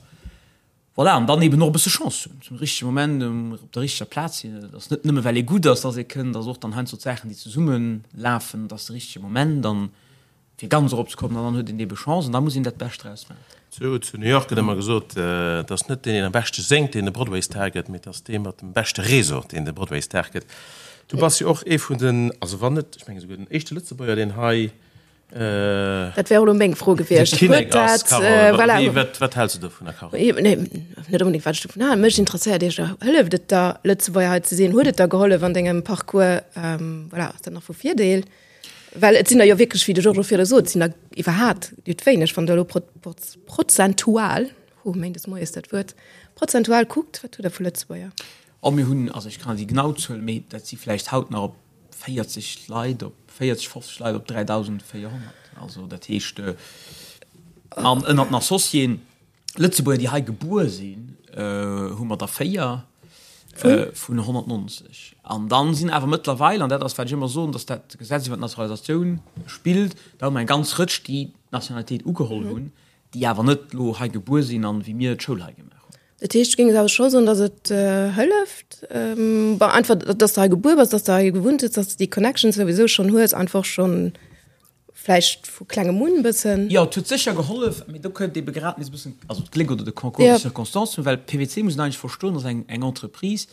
D: Voilà, an dann eben och e bësse Chance hunn, zum richtege Moment op der richteger Plaz sinn. Et ass net nëmme well ee gutt ass, dass ee kënnt, et ass och dann heiansdo d'Saachen, déi zesumme lafen, et ass de richtege Moment an fir ganz erop ze kommen an dann huet een ebe Chance an da muss een dat Bescht draus maachen.
C: Zu zu New York gëtt ëmmer gesot, et ass net deen, deen am beschte séngt, deen de Broadway-Star gëtt, mee et ass dee mat dem beschte Réseau, deen de Broadway-Star gëtt. Du bass jo och ee vun den, also wann net, ech mengen esouguer den éischte Lëtzebuerger, deen hei
B: Dat wär och elo meng Fro gewiescht.
C: Huet dat, voilà. Wat, wat häls du dovunner,
B: Carole? Nee, net unbedingt, wat ech dovun halen. Mech interesséiert éischter, hëlleft et der, Lëtzebuerger hei ze sinn? Huet et der gehollef an dengem Parcours? Voilà, ass dat nach vu Virdeel? Well et sinn der jo wierklech, wéi de Georges och virdu sot, et sinn der iwwerhaat nüt wéineg, wann Der elo prozentual, hu, méindes moies dat Wuert, prozentual kuckt, wat hutt Der vu Lëtzebuerger?
D: Oh, mir hunn, also ech kann net déi genau Zuel, mee dat si vläicht haut nach op 40 Leit op 40, 50 Leit op 3.400. Also dat heescht, an ënnert den Associéen, Lëtzebuerger, déi hei gebuer sinn, hu mer der 4 vun 190. An dann sinn awer mëttlerweil, an dat ass wat ech ëmmer soen, datt dat Gesetz iwwer d'Naturalisatioun spillt, da hu mer eng ganz Rëtsch, déi d'Nationalitéit ugeholl hunn, déi awer net elo hei gebuer sinn an wéi mir d'Schoul hei gemaach hunn.
B: Dat heescht, du géings awer scho soen, datt et hëlleft, bon, einfach, datt s de hei gebuer bass, datt s de hei gewunnt hues, datt s de déi Connections souwisou schonn hues, einfach schonn vläicht vu klengem un e bëssen.
D: Jo, et huet sécher gehollef, mee do kënnt ebe grad nees e bëssen, also d'Gléck oder de Concours de circonstances, well PwC, muss een eigentlech verstoen, ass eng eng Entreprise,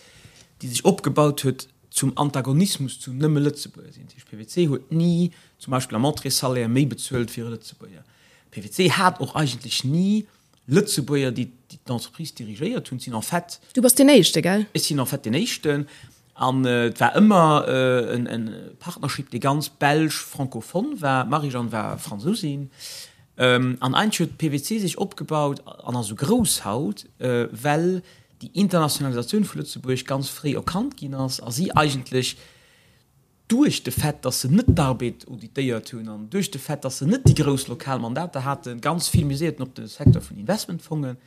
D: déi sech opgebaut huet zum Antagonismus zu nëmme Lëtzebuerger sinn. Dat heescht, PwC huet ni zum Beispill am Entrée-Salaire méi bezuelt wéi e Lëtzebuerger. PwC hat och eigentlech ni Lëtzebuerger, déi d'Entreprise dirigéiert hunn. Sinn en fait.
B: Du bass deen Éischte, gell?
D: Ech sinn en fait deen Éischten. An et war ëmmer en Partnership, dee ganz belsch-francophone war. D'Marie-Jeanne war Fransousin. An eigentlech huet PwC sech opgebaut an ass esou grouss haut, well déi Internationalisatioun vu Lëtzebuerg ganz fréi erkannt ginn ass a si eigentlech, duerch de Fait, dass se net d'Arbed auditéiert hunn an duerch de Fait, dass se net déi grouss lokal Mandater haten, ganz vill miséierten op de Secteur vun Investmentfongen.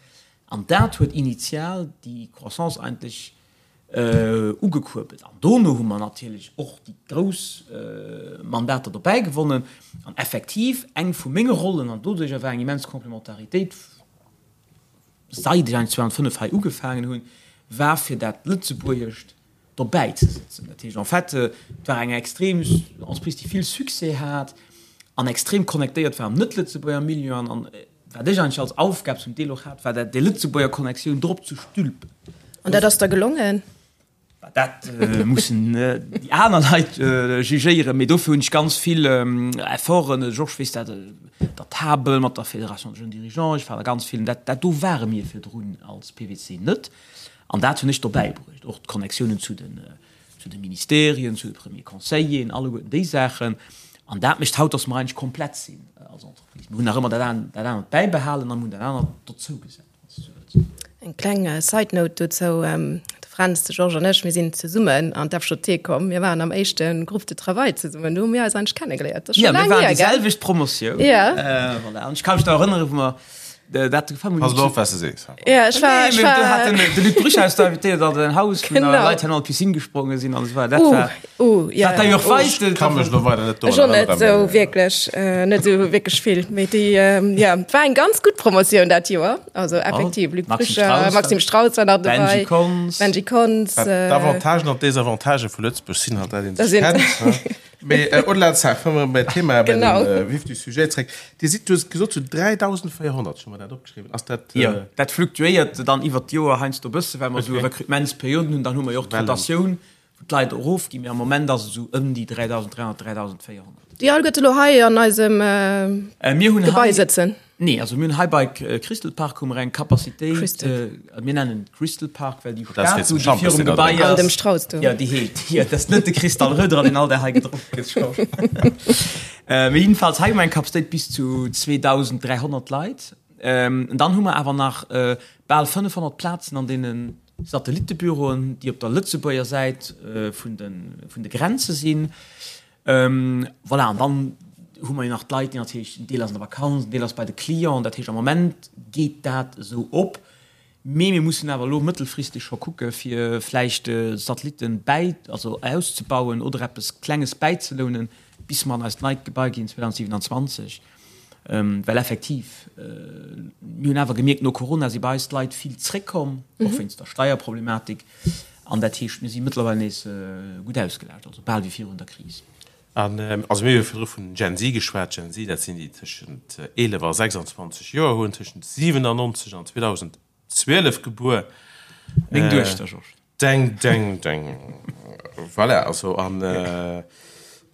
D: An dat huet initial déi Croissance eigentlech ugekuerbelt. An dono hu mer natierlech och déi grouss Mandater dobäi gewonnen. An effektiv, eng vu menge Rollen, an doduercher war eng immens Complementaritéit, seit ech eigentlech 2005 hei ugefaangen hunn, war fir dat Lëtzebuergescht dobäi ze sëtzen. Dat heescht en fait, et war eng extrem Entreprise, déi vill Succès hat an extrem connectéiert war am net-Lëtzebuerger Milieu. An, an wat ech eigentlech als Aufgab zum Deel och hat, war dat, déi Lëtzebuerger Connectioun drop ze stülpen.
B: An dat ass der gelongen?
D: Dat mussen déi aner Leit jugéieren, mee dofir hunn ech ganz vill Efforten, de Georges weess dat, der Table mat der Fédération des jeunes dirigeants, ech war da ganz vill, dat, dat do ware mir virdrun als PwC net. An dat hunn ech dobäi bruecht, och d'Connectiounen zu den, zu de Ministerien, zu de Premiers Conseilleren, alleguerten déi Saachen. An dat mécht haut, dass mer eigentlech komplett sinn als Entreprise. Mir hunn nach ëmmer dat dat anert bäibehalen a mir hunn dat anert dozougesat, wann s de esou wëlls.
B: Eng kleng Side Note dozou, De Fränz, de Georges an ech, mir sinn zesummen an d'FJT komm. Mir waren am éischte Groupe de travail zesummen. Do hu mir eis eigentlech kennegeléiert.
D: Dat ass scho laang hier, gell? Ja, mir waren déi selwecht Promotioun.
B: Ja.
D: Voilà. An ech ka mech nach erënneren, wou mer dat gefaangen
E: hunn. Pass elo op, wat s de sees.
B: Ja, ech war, ech war.
D: Do hat den, de Luc Brüch eis da invitéiert an säin Haus, wou nach Leit han an d'Piscine gespronge sinn an esou weider. Dat war.
B: Uh, ja.
D: Wat der jo och weist.
E: Ech ka mech elo weider net
B: Ech och net esou wierklech, net esou wierklech vill. Mee déi, ja, et war eng ganz gutt Promotioun dat Joer. Also effektiv, Luc Brücher, Maxime Strauss war nach dobäi.
D: Benji Konz.
B: Benji Konz.
E: D'Avantagen an d'Desavantagen vu Lëtzebuerg sinn halt, dat een sech kennt. Mee au-delà de ça, komme mer bei d'Thema, bei den Vif du sujet zréck. Dir sidd, du hues gesot, zu 3.400, ech hu mer dat opgeschriwwen. Ass dat.
D: Jo, dat fluktuéiert dann iwwert d'Joer heiansdo e bësse, well mer esou Recrutementsperioden hunn. Dann hu mer jo och d'Rotatioun. Wou d'Leit erofginn, mee am Moment ass et esou ëm déi 3.300, 3.400.
B: Déi all gëtt elo hei an eisem Gebai sëtzen?
D: Nee, also mir hunn hei bei Crystal Park hu mer eng Capacitéit, mir nennen et Crystal Park, well déi Statu, déi virum Gebai ass.
B: An dem Strauss do.
D: Jo, déi heet, jo, dat ass net de Cristal Röderer, deen all Dag hei gedronk gëtt, Georges. Mee jedenfalls, hei hu mer eng Capacitéit bis zu 2.300 Leit. Dann hu mer awer nach bal 500 Plazen an deenen Satellittebüroen, déi op der Lëtzebuerger Säit vun de Grenze sinn. Voilà, an dann hu mer jo nach d'Leit, déi natierlech, en Deel ass an der Vakanz, en Deel ass bei de Clienten. Dat heescht, am Moment geet dat esou op. Mee mir mussen awer elo mëttelfristeg scho kucke fir vläicht Satellitten bäi, also auszebauen oder eppes Klenges bäizelounen, bis mer an eist neit Gebai ginn 2027. Well effektiv, mir hunn awer gemierkt, no Corona si bei eis d'Leit vill zréckkomm, och wéinst der Steierproblematik. An dat heescht, mir si mëttlerweil nees gutt ausgelaascht, also bal wéi virun der Kris.
C: An also mir hu jo virdru vun Gen Z geschwat. Gen Z, dat sinn déi tëschent 11 a 26 Joer hunn, tëschent 97 an 2012 gebuer.
D: Meng Duechter, Georges.
C: Deng, deng, deng. Voilà, also an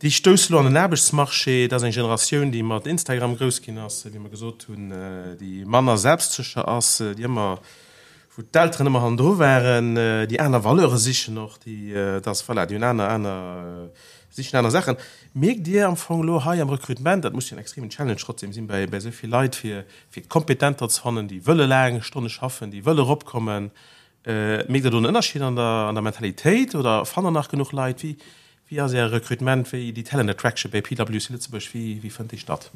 C: déi stousse lo an den Aarbechtsmarché. Dat ass eng Generatioun, déi mat Instagram grouss ginn ass, wéi mer gesot hunn, déi manner selbstsécher ass, déi ëmmer, wou d'Elteren ëmmer hannendru waren, déi aner Valeure sichen och, déi, dass, voilà, déi hunn aner, aner, sichen aner Saachen. Mierkt Dir am Fong elo hei am Recrutement, dat muss jo en extremen Challenge trotzdem sinn bei, bei esou vill Leit, fir, fir Kompetenter ze fannen, déi wëlle laang Stonne schaffen, déi wëlle eropkommen, Mierkt Der do en Ënnerscheed an der, an der Mentalitéit oder fannt Der nach genuch Leit? Wéi, wéi ass Äre Recrutement, wéi déi Talent Attraction bei PwC Lëtzebuerg, wéi, wéi fënnt déi statt?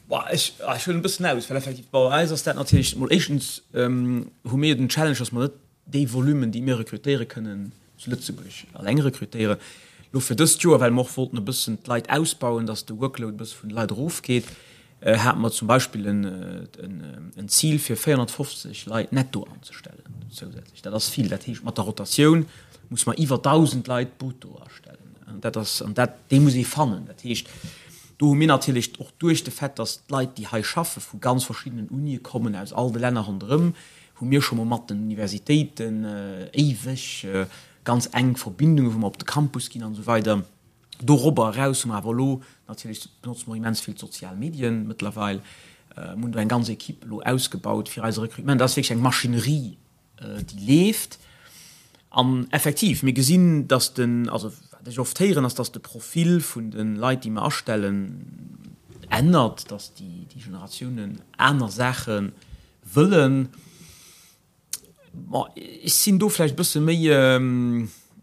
D: Boah, ech, ech huelen e bëssen aus, well effektiv bei eis ass dat natierlech mol éischtens hu mir jo den Challenge, dass mer net déi Volumen, déi mir rekrutéiere kënnen, zu Lëtzebuerg alleng rekrutéieren. Lo fir dëst Joer, well mer och wollten e bëssen d'Leit ausbauen, dass de Workload e bësse vun de Leit erofgeet, hate mer zum Beispill en Zil fir 450 Leit netto anzestellen zousätzlech. Dat ass vill. Dat heescht, mat der Rotatioun muss mer iwwer 1.000 Leit brutto astellen. An dat ass, an dat, déi muss ee fannen. Dat heescht, do hu mir natierlech och duerch de Fait, dass d'Leit, déi hei schaffe vu ganz verschiddenen Unie kommen, aus all de Länner ronderëm, hu mir scho mol mat den Universitéiten éiweg ganz enk Verbindungen, wou mer op de Campus ginn an esou weider. Dorobber eraus hu mer awer elo natierlech, benotze mer immens vill d'sozial Medien mëttlerweil, mir hunn do eng ganz Equipe elo ausgebaut fir eise Recrutement. Dat ass wierklech eng Maschinerie, déi leeft. An effektiv, mir gesinn, dass den, also wat ech oft héieren, ass, dass de Profil vun de Leit, déi mer astellen, ännert, dass déi Generatiounen aner Saache wëllen. Bon, ech sinn do vläicht e bësse méi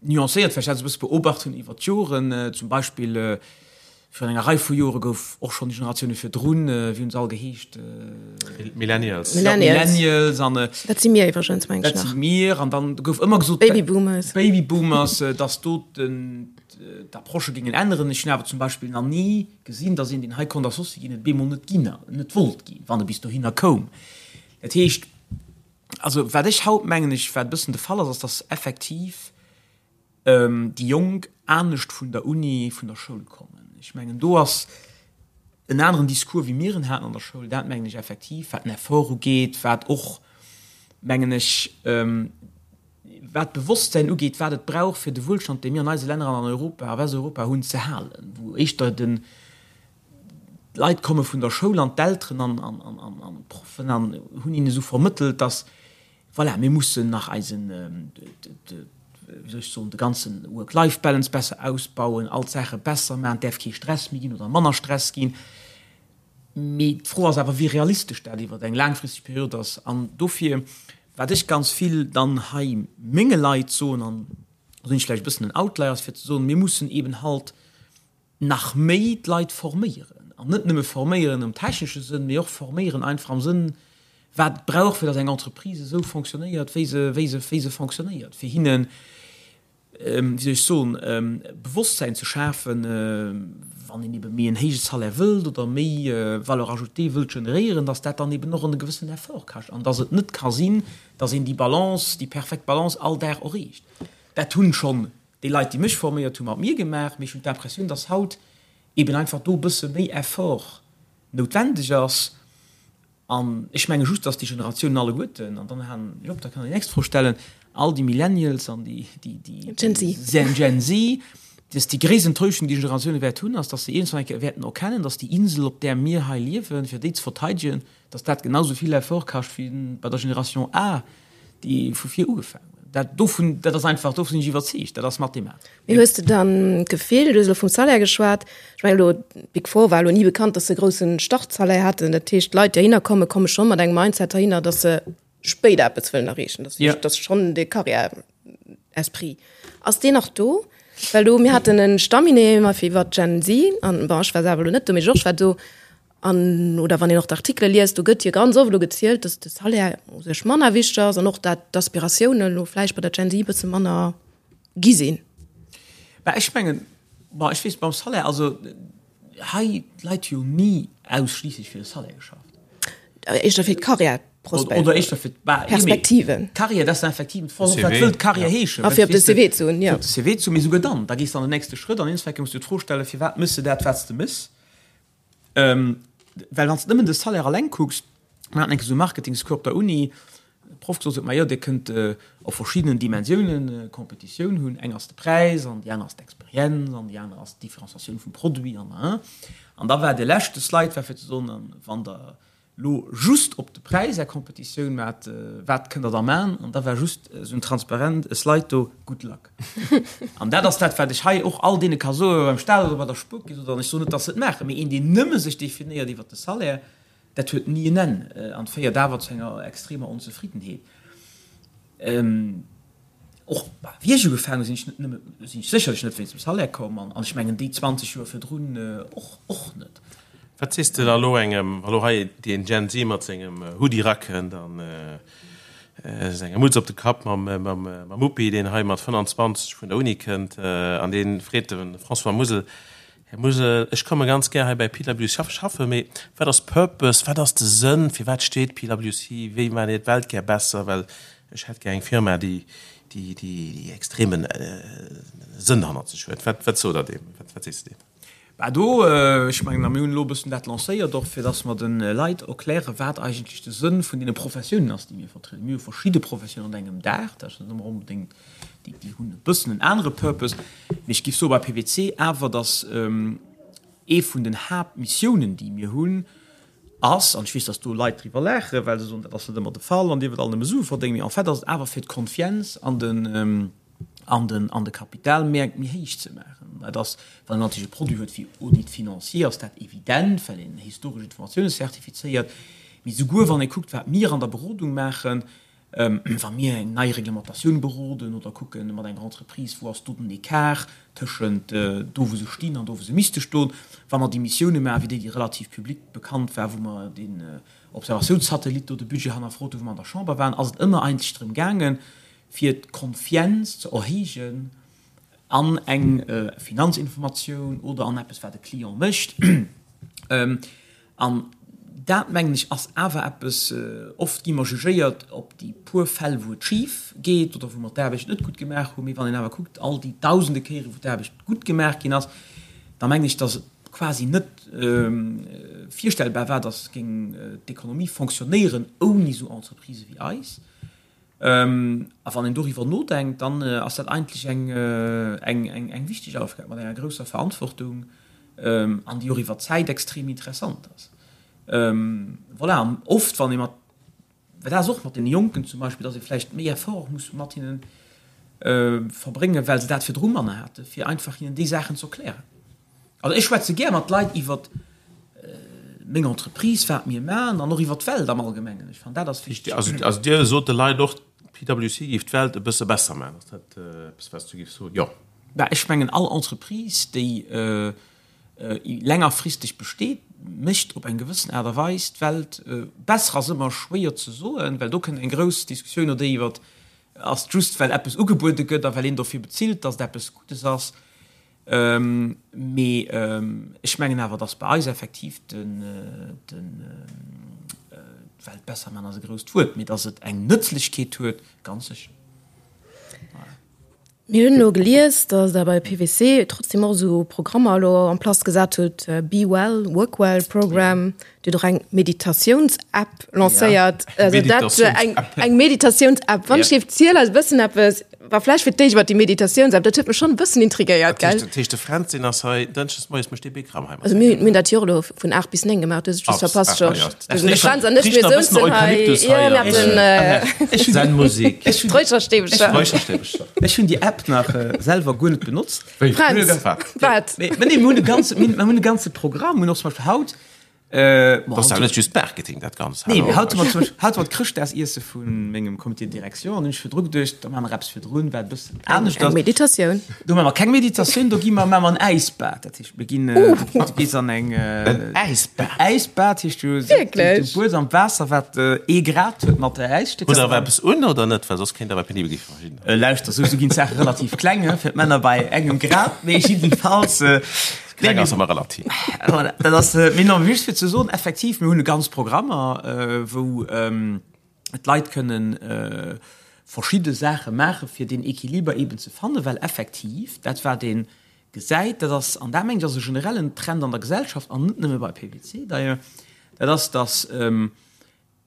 D: nuancéiert, well ech dat esou e bësse beobacht hunn iwwer d'Joren. Zum Beispill virun enger Rei vu Jore gouf och schonn déi Generatioune virdrun, wéi hunn se all geheescht?
C: Millennials.
D: Ja, Millennials. An,
B: dat si mir iwwregens, meng ech nach.
D: Dat si mir. An dann gouf ëmmer gesot,
B: Babyboomers.
D: Babyboomers, datt do den, d'Approchë géingen änneren. Ech hunn awer zum Beispill nach ni gesinn, datt een, deen hei konnt Associé ginn, et bemol net ginn, net wollt ginn, wann e bis dohinner koum. Dat heescht, also wat ech haut, mengen ech, wat e bëssen de Fall ass, ass, datt effektiv déi Jonk anescht vun der Uni, vun der Schoul kommen. Ech mengen, do ass en aneren Discours, wéi mir en haten an der Schoul, dat mengen ech effektiv, wat den Effort ugeet, wat och, mengen ech, wat d'Bewosstsäin ugeet, wat et brauch, fir de Wuelstand, dee mir an eise Länner an an Europa, a Westeuropa hunn, ze halen, wou éischter den, d'Leit komme vun der Schoul an d'Elteren an d'Proffen an hunn hinnen esou vermëttelt, dass, voilà, mir mussen nach eisen, wéi soll ech soen, de ganze Work-Life-Balance besser ausbauen, all d'Saache besser maachen, et däerf kee Stress méi ginn oder manner Stress ginn. Mee d'Fro ass awer, wéi realistesch dat iwwer eng laangfristeg Period ass. An dofir. Wat ech ganz vill dann hei menge Leit soen, an do sinn ech vläicht e bëssen en Outlier, ass fir ze soen, mir mussen eeben halt nach méi d'Leit forméieren. An net nëmme forméieren am technesche Sënn, mee och forméieren einfach am Sënn, wat et brauch, fir datt eng Entreprise esou fonctionnéiert, wéi se, wéi se, wéi se fonctionnéiert, fir hinnen, wéi soll ech soen, Bewosstsäin ze schafen, wann een ebe méi en héije Salaire wëllt oder méi Valeur ajoutée wëllt generéieren, datt dat dann eben och en gewëssenen Effort kascht an datt et net ka sinn, datt een déi Balance, déi perfekt Balance all Dag erreecht. Dat hunn schonn déi Leit, déi mech forméiert hunn, mat mir gemaach, mee ech hunn d'Impressioun, datt haut eben einfach do e bësse méi Effort noutwendeg ass. An ech menge just, dass déi Generatiounen alleguerten, an dann halen ech op, da kann Der déi nächst Fro stellen, all déi Millennials an déi, déi, déi
B: Gen Z.
D: Gen Z, dass déi gréisst Enttäuschung, déi Generatioune wäert hunn, ass, dass se iergendwann eng Kéier wäerten erkennen, dass déi Insel, op där mir hei liewen, fir déi ze verteidegen, dass dat genau sou vill Effort kascht wéi bei der Generation A, déi vu vir ugefaangen huet. Dat dovun, dat ass einfach, dovun sinn ech iwwerzeegt, dat ass mathematesch.
B: Mee hues de dann d'Gefill, du hues elo vum Salaire geschwat, ech mengen elo d'Big Four war elo ni bekannt, datt se e grousse Startsalaire haten, dat heescht d'Leit déi heihinner kommen, komme scho mat engem Mindset heihinner, datt se spéider eppes wëllen erreechen, datt
D: Ja.
B: datt schonn de Carrière-Esprit. Ass deen nach do? Well do, mir haten e Staminee mat fir iwwer d'Gen Z an, bon ech war selwer elo net do, mee Georges war do, an oder wann een och d'Artikele liest, do gëtt jo ganz oft elo gezielt, datt de Salaire u sech manner wichteg ass an och dat d'Aspiratiounen elo vläicht bei der Gen Z e bësse manner gi sinn.
D: Bah, ech mengen, bon, ech weess beim Salaire, also hei d'Leit hu jo ni ausschliisslech fir de Salaire geschafft.
B: Éischter fir d'Karriärprospekt.
D: Oder éischter fir
B: d'Perspektiven.
D: D'Karriär, dat ass effektiv, d'Fro ass och, wat wëll d'Karriär heeschen?
B: A fir op de CV ze hunn, jo.
D: Fir op de CV ze hunn, mee souguer dann, da gees de an den nächste Schrëtt an iergendwann muss du d'Fro stellen, firwat méchs de dat, wat s de méchs? Well wann s de nëmmen de Salaire alleng kucks, mir haten eng Kéier esou e Marketingscours op der Uni, de Proff gesot huet, majo Dir kënnt op verschiddenen Dimensiounen Competitioun hunn, eng ass de Präis an déi aner ass d'Experienz an déi aner ass d'Differenciatioun vum Produit an an. An da war de leschte Slide war fir ze soen, wann Der lo just op de Präis Är Competitioun maacht, wat kënnt Der da maachen? An da war just esou en Transparent, e Slide do, Good luck. An dat ass dat, wat ech hei och all deene ka soen, beim Staat oder bei der Spuerkeess oder, an ech soen net, datt se et maachen, mee een, deen nëmme sech definéiert iwwert de Salaire, Dat huet ni en Enn an féiert awer zu enger extremer Onzefriddenheet. Och wéi ech ugefaangen hunn, sinn ech net nëmme, sinn ech sécherlech net wéinst dem Salaire komm an ech mengen déi 20 Joer virdrun och, och net.
C: Wat sees de da elo engem, wa lo hei deen Gen Z mat sengem Hoodie rakënnt an senger Mutz op de Kapp mam, mam, mam Muppi, deen hei mat 25 vun der Uni kënnt an dee freet de François Musel, Här Musel, ech komme ganz gär hei bei PwC schaffen, mee wat ass Purpose, wat ass de Sënn, fir wat steet PwC, wéi maacht Dir d'Welt gär besser, well ech hätt gär eng Firma, déi déi déi extremen Sënn hannert sech huet. Wat wat sot Der deem, wat wat sees de deem?
D: Bah do, ech mengen, a mir hunn elo e bëssen dat lancéiert och, fir dass mer de Leit erklären, wat eigentlech de Sënn vun deene Professiounen ass, déi mir vertrieden. Mir hu verschidde Professiounen an engem Daach, dat ass net ëmmer onbedéngt Déi, déi hunn e bëssen en anere Purpose. Mee ech géif soe bei PwC awer, datt ee vun den Haaptmissiounen, déi mir hunn, ass, an ech weess, datt do Leit driwwer laachen, well se soen, dat ass net ëmmer de Fall an Dir wëllt all nëmme Sue verdéngen, mee en fait ass et awer fir d'Confiance an den, an den, an de Kapitalmäerkt méi héich ze maachen. Dat ass, wann een natierlech e Produit huet wéi Audit financier, ass dat evident, well een historesch Informatioune zertifizéiert. Mee souguer wann ee kuckt, wat mir an der Berodung maachen, Wa mir eng nei Reglementatioun beroden oder kucke mat enger Entreprise, wou ass do den Ecart tëschent do wou se stinn an do wou se misste stoen, wa mer déi Missioune maachen, wéi déi, déi relativ public bekannt war, wou mer deen Observatiounssatellit do de Budget hannerfrot hunn, wou mer an der Chamber waren, ass et ëmmer eigentlech drëm gaangen, fir d'Confienz ze erhéijen an eng Finanzinformatioun oder an eppes, wat e Client mécht. An dat, mengen ech, ass awer eppes, oft gi mer jugéiert op déi puer Fäll, wou et schif geet oder wou mer d'Aarbecht net gutt gemaach hunn. Mee wann een awer kuckt, all déi dausende Kéieren, wou d'Aarbecht gutt gemaach ginn ass, da mengen ech, datt et quasi net virstellbar war, datt géing d'Ekonomie fonctionnéieren ouni esou Entreprisë wéi eis. A wann een doriwwer nodenkt, dann ass dat eigentlech eng wichteg Aufgab mat enger grousser Verantwortung an déi och iwwer d'Zäit extrem interessant ass. Voilà, an oft wann ee mat, well dat ass och mat deene Jonken zum Beispill, datt ee vläicht méi Effort muss mat hinnen verbréngen, well se dat virdru manner haten, fir einfach hinnen déi Saachen ze erklären. Also ech schwätze gär mat Leit iwwer. meng Entreprise, wat mir maachen an och iwwer d'Welt am Allgemengen. Ech fannen, dat ass wichteg.
C: Also Dir sot de Leit och, PwC géif d'Welt e bësse besser maachen. Ass dat eppes, wat s du géifs soen? Jo.
D: Bah, ech mengen, all Entreprise, déi längerfristeg besteet, mécht op eng gewëssen Aart a Weis d'Welt besser. Ass ëmmer schwéier ze soen, well do kënnt eng grouss Diskussioun oder déi iwwer, ass et just well eppes ugebuede gëtt a well een dofir bezilt, datt et eppes Guddes ass. Mee ech mengen awer, datt bei eis effektiv den, d'Welt besser man ass e grousst Wuert, mee datt et eng Nëtzlechkeet huet, ganz sécher.
B: Mir hunn elo gelies, datt Der bei PwC trotzdem och esou Programmer elo en place gesat hutt, Be well, work well Program. Dir hutt och eng Meditatiouns-App lancéiert. Also dat, eng, eng Meditatiouns-App. Wann ech géif ziel eis e bëssen eppes War vläicht fir d'éischt iwwer déi Meditatiouns-App, dat huet mech schonn e bëssen intrigéiert,
C: gell? Dat heescht, de Fränz, deen ass hei dënschdes moies, mécht dee Bikram hei
B: mat. Also mir hunn dat jo och elo vun 8 bis 9 gemaach, du hues et just verpasst, Georges. De Fränz an ech, mir souzen hei, jo, mir haten
C: Zen-Musik,
B: Räucherstäbcher.
C: Räucherstäbcher.
D: Ech hunn déi App nach selwer guer net benotzt.
B: Fränz, wat?
D: Mee nee, mir hunn e ganze, mir hunn e ganze Programm, mir hunn och zum Beispill haut,
C: Dat ass awer net just Marketing, dat Ganzt.
D: Nee, mee haut hu mer zum Beispill, haut war d'Chrëschtdagsiesse vu mengem Comité de direction an hunn ech virdru geduecht, da maache mer eppes virdrun, wat e bëssen anescht
B: ass. Eng Meditatioun.
D: Do maache mer keng Meditatioun, do gi mer, maache mer en Äisbad. Dat heescht, mir ginn, du gees an eng.
C: En Äisbad?
D: En Äisbad heescht, du,
B: Wierklech?
D: du buers am Waasser, wat ee Grad huet mat Äisstécker.
C: Hutt Der awer eppes un oder net? Well soss kéint awer penibel gi fir verschiddener.
D: Lauschter, sou ginn d'Saache relativ kleng, fir d'Männer bei engem Grad, mee jiddefalls.
C: Kleng ass ëmmer relativ.
D: Voilà, dat ass, mee non, just fir ze soen, effektiv, mir hunn e ganz Programmer, wou d'Leit kënnen verschidde Saache maache fir deen Equiliber eeben ze fannen, well effektiv dat wat ee gesäit, dat ass, an dat mengen ech ass e generellen Trend an der Gesellschaft an net nëmme bei PwC d'ailleurs, dat ass, datt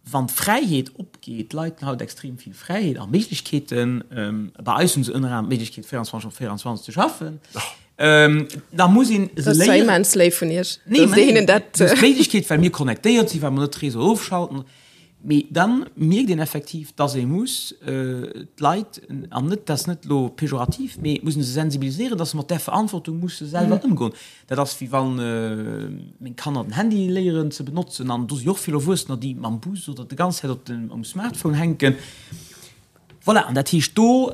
D: Wann d'Fräiheet opgeet, d'Leit hunn haut extrem vill Fräiheet a Méiglechkeeten, bei eis hu se ënner anerem d'Méiglechkeet 24 op 24 ze schaffen, da muss een
B: se léieren. Dat ass zwar immens léif vun Iech, datt Dir hinnen dat.
D: Nee, d'Méiglechkeet, well mir connectéiert sinn, well mer net d'Réseau ofschalten. Mee da mierkt een effektiv, datt ee muss d'Leit, an net, dat ass net elo pejorativ, mee et muss ee se sensibiliséieren, datt se mat där Verantwortung musse selwer ëmgoen. Dat ass wéi wann meng Kanner den Handy léieren ze benotzen an do si och vill Erwuessener, déi mam Bus oder de ganz Zäit op dem um Smartphone hänken. Voilà, an dat heescht do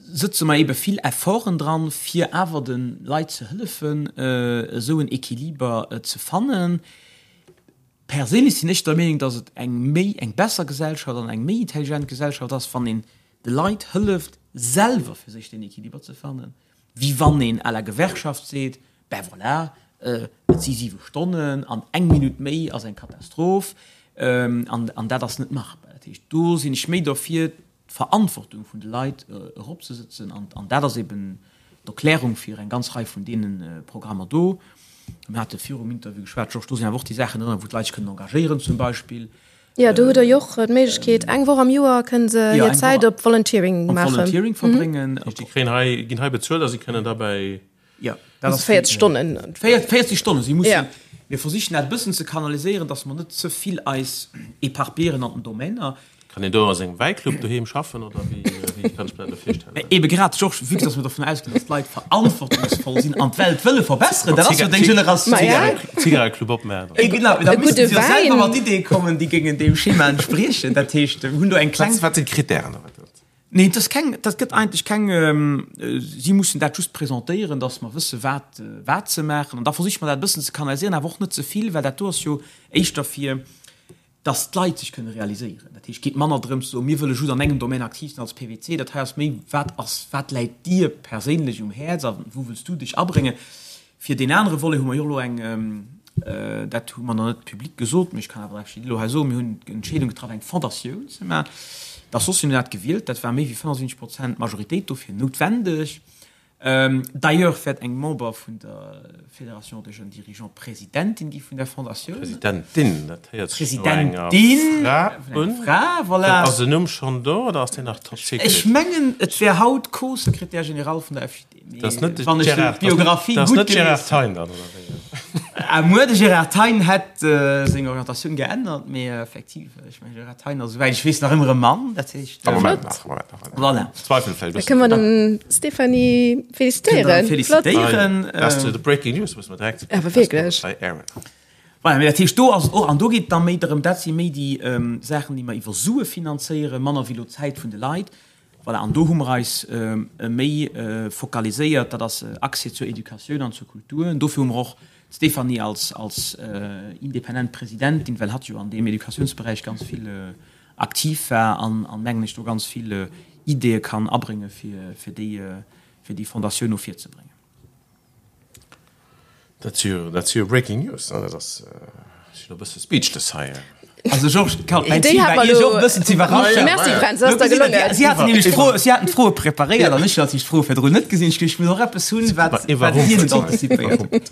D: sëtze mer ebe vill Efforten dran, fir awer de Leit ze hëllefen, esou en Equiliber ze fannen. Perséinlech sinn ech der Meenung, datt et eng méi eng besser Gesellschaft an eng méi intelligent Gesellschaft ass, wann een de Leit hëlleft, selwer fir sech deen Equiliber ze fannen. Wéi wann een à la Gewerkschaft seet, Ben voilà, et si siwe Stonnen an eng Minutt méi ass eng Katastroph an dat ass net machbar. Dat heescht, do sinn ech méi derfir, d'Verantwortung vun de Leit eropzesëtzen an dat ass eben d'Erklärung fir eng ganz Rei vun deene Programmer do. Mir hate virum Interview geschwat, Georges, do sinn awer och déi Saachen drënner, wou d'Leit sech kënnen engagéieren zum Beispill.
B: Jo, do hutt Der jo och d'Méiglechkeet, eng Woch am Joer kënne se hir Zäit op Volunteering maachen.
D: Op Volunteering verbréngen.
C: Déi kréien hei, ginn hei bezuelt a si kënnen derbäi.
D: Jo, dat ass.
B: 40 Stonnen.
D: 40 Stonnen. Si mussen, mir versichen dat e bëssen ze kanaliséieren, datt mer net ze vill eis éparpillieren an den Domainer.
C: Kann een do a sengem Wäiclub doheem schaffen oder wéi, wéi kann ech mir dat elo virstellen?
D: Ebe grad, Georges, vue que dass mer dovun ausginn, dass d'Leit verantwortungsvoll sinn an d'Welt wëlle verbesseren, dat ass jo deng Generatioun.
C: Zigareclub opmaachen.
D: Eh genau, da missten se jo selwer mat Ideeë kommen, déi géingen deem Schema entspriechen. Dat heescht, mir hunn do eng kleng.
C: Wat sinn d'Kritären?
D: Nee, dat ass keng, dat gëtt eigentlech keng, si mussen dat just presentéieren, dass mer wësse wat, wat se maachen. An da versiche mer dat e bëssen ze kanaliséieren, awer och net ze vill, well dat do ass jo éischter fir, dass d'Leit sech kënne realiséieren. Dat heescht, et geet manner drëms ze soen, mir wëlle just an engem Domaine aktiv sinn als PwC. Dat hei ass méi, wat ass, wat läit dir perséinlech um Häerz a wou wëlls du dech abréngen? Fir deen anere Volet hu mer jo och elo eng, dat hu mer nach net public gesot, mee ech kann awer actually elo hei soen, mir hunn d'Entscheedung getraff, eng Fondatioun ze maachen. D'Associen hunn dat gewielt, dat war méi wéi 75 Prozent Majoritéit dofir noutwendeg. D'ailleurs wäert eng Member vun der Fédération des jeunes dirigeants Presidentin gi vun der Fondatioun.
C: Presidentin, dat héiert sech no enger
D: Fra un. Fra, voilà.
C: Ass den Numm schonn do oder ass deen nach top secret?
D: Ech mengen, et wär haut Co-Secrétaire général vun der FJD.
C: Dat ass net de Gérard, dat ass net Gérard Thein dann, oder wéi?
D: Ah, muer, de Gérard Thein hätt seng Orientatioun geännert, mee effektiv, ech mengen, Gérard Thein ass, esouwäit ech weess, nach ëmmer e Mann, dat heescht.
C: Am Moment nach, am Moment nach.
D: Voilà.
C: Zweifel fällt.
B: Da kënne mer den Stéphanie félicitéieren.
D: Félicitéieren.
C: Dat ass de Breaking News, muss mer direkt.
B: Awer wierklech.
D: Voilà, mee dat heescht, do ass et och, an do geet et da méi drëm, dat si méi déi Saachen, déi mer iwwer Sue finanzéieren, manner wéi elo d'Zäit vun de Leit. Voilà, an do hu mer eis méi focaliséiert, dat ass Accès zur Educatioun an zur Kultur. An dofir hu mer och d'Stéphanie als, als independent Presidentin, well hatt jo an deem Educatiounsberäich ganz vill aktiv war an, an mengen ech, do ganz vill Ideeë kann abrénge fir, fir déi, fir déi Fondatioun no vir ze bréngen.
E: Dat si jo, dat si jo Breaking News, ne? Dat ass, ech sinn e bësse speechless hei.
D: Also Georges, Karl, mäin Zil war Iech och e bëssen ze iwwerraschen.
B: Merci Fränz, dat ass der gelongen.
D: Si haten nämlech d'Fro, si haten d'Froe preparéiert an ech hunn natierlech d'Froe virdrun net gesinn. Ech ech muss och eppes hunn, wat, wat hien net antizipéiert huet.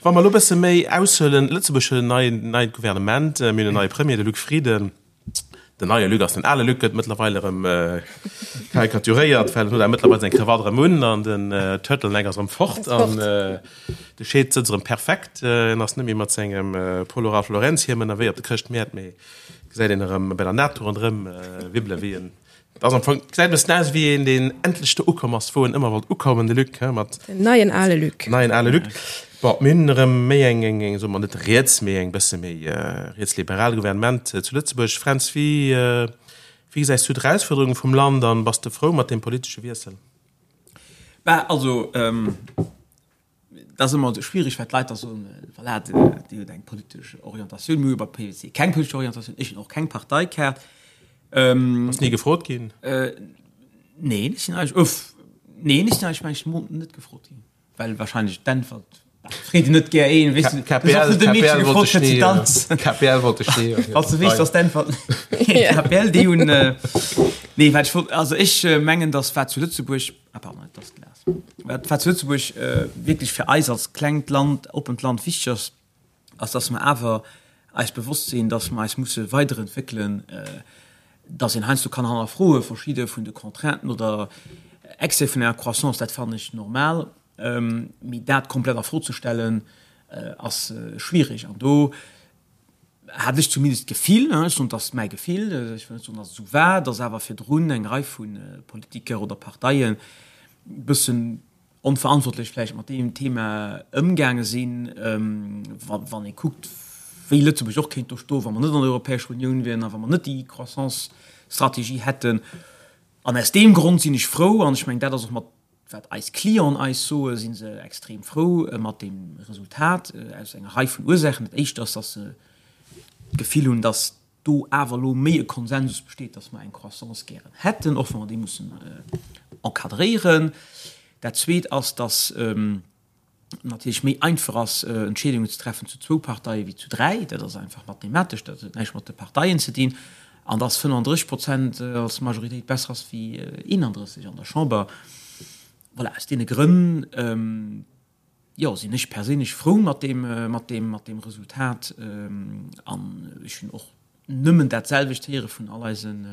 C: Wa mer elo e bësse méi aushuelen, Lëtzebuerg huet en neien, neit Gouvernement, mir hunn en neie Premier, de Luc Frieden. Den neie Luc ass den ale Luc, gëtt mëttlerweil erëm karikaturéiert, well en huet awer mëttlerweil seng Krawatt erëm un an den Turtleneck ass erëm fort an de Scheed sëtzt erëm perfekt. En ass net méi mat sengem Polo Ralph Lauren Hiem ënnerwee op de Chrëschtmäert, mee gesäit een erëm bei der NATO ronderëm wibbele wéi en Et ass am Fong, gesäit e bëssen aus wéi een, deen endlech do ukomm ass, wou en ëmmer wollt ukommen, de Luc, he, mat.
B: Den neien ale Luc.
C: Neien ale Luc. Bon, mir hunn erëm méi eng, eng, eng, soe mer net riets, mee eng bësse méi rietsliberal Gouvernement zu Lëtzebuerg. Fränz, wéi, wéi gesäis du d'Erausfuerderunge vum Land an bass de frou mat deem politesche Wiessel?
D: Bah, also, Dat ass ëmmer schwierig, well d'Leit da soen, voilà, Dir hutt eng politesch Orientatioun. Mir hu bei PwC keng politesch Orientatioun. Ech hunn och keng Parteikaart.
C: Bass ni gefrot ginn?
D: Neen, ech sinn eigentlech, uff, neen, ech sinn eigentlech, mengen ech, mo net gefrot ginn, well wahrscheinlech d'Äntwert, bah, freet een net gär een, weess du,
E: KPL, KPL wollt dech ni, KPL wollt dech ni.
D: Falls du weess, dass d'Äntwert, KPL, déi hunn, nee, wat ech wollt, also ech mengen, dass wat zu Lëtzebuerg, Ah pardon, et ass d'Glas. Wat wat zu Lëtzebuerg wierklech fir eis als klengt Land, oppent Land wichteg ass, ass dass mer awer eis bewosst sinn, dass mer eis musse weiderentwéckelen, dass een heiansdo kann hannerfroe verschidde vun de Contrainten oder Excès vun enger Croissance, dat fannen ech normal, mee dat komplett a Fro ze stellen, ass schwierig. An do hat ech zumindest d'Gefill, ech soen, et ass mäi Gefill, ech wëll net soen, datt et esou war, datt awer virdrun eng Rei vu Politiker oder Parteien e bëssen onverantwortlech vläicht mat deem Thema ëmgaange sinn. Wann ee kuckt, wéi Lëtzebuerg och kéint do stoen, wa mer net an der Europäescher Unioun wieren a wa mer net déi Croissance-Strategie hätten. An aus deem Grond sinn ech frou, an ech mengen, dat ass och mat Wat eis Clienten eis soen, si se extrem frou mat deem Resultat, aus enger Rei vun Ursaachen. Dat éischt ass, datt se d'Gefill hunn, datt do awer elo méi e Konsensus besteet, datt mer eng Croissance gären hätten, och wa mer déi mussen encadréieren. Dat Zweet ass, datt natierlech méi einfach ass, Entscheedungen ze treffen zu zwou Parteie wéi zu dräi. Dat ass einfach mathematesch, dat huet näischt mat de Parteien ze dinn. An dass 35 Prozent als Majoritéit besser ass wéi 31 an der Chamber. Voilà, aus deene Grënn, jo, sinn ech perséinlech frou mat deem, mat deem, mat deem Resultat. An ech hunn och nëmmen dat selwecht héiere vun all eisen,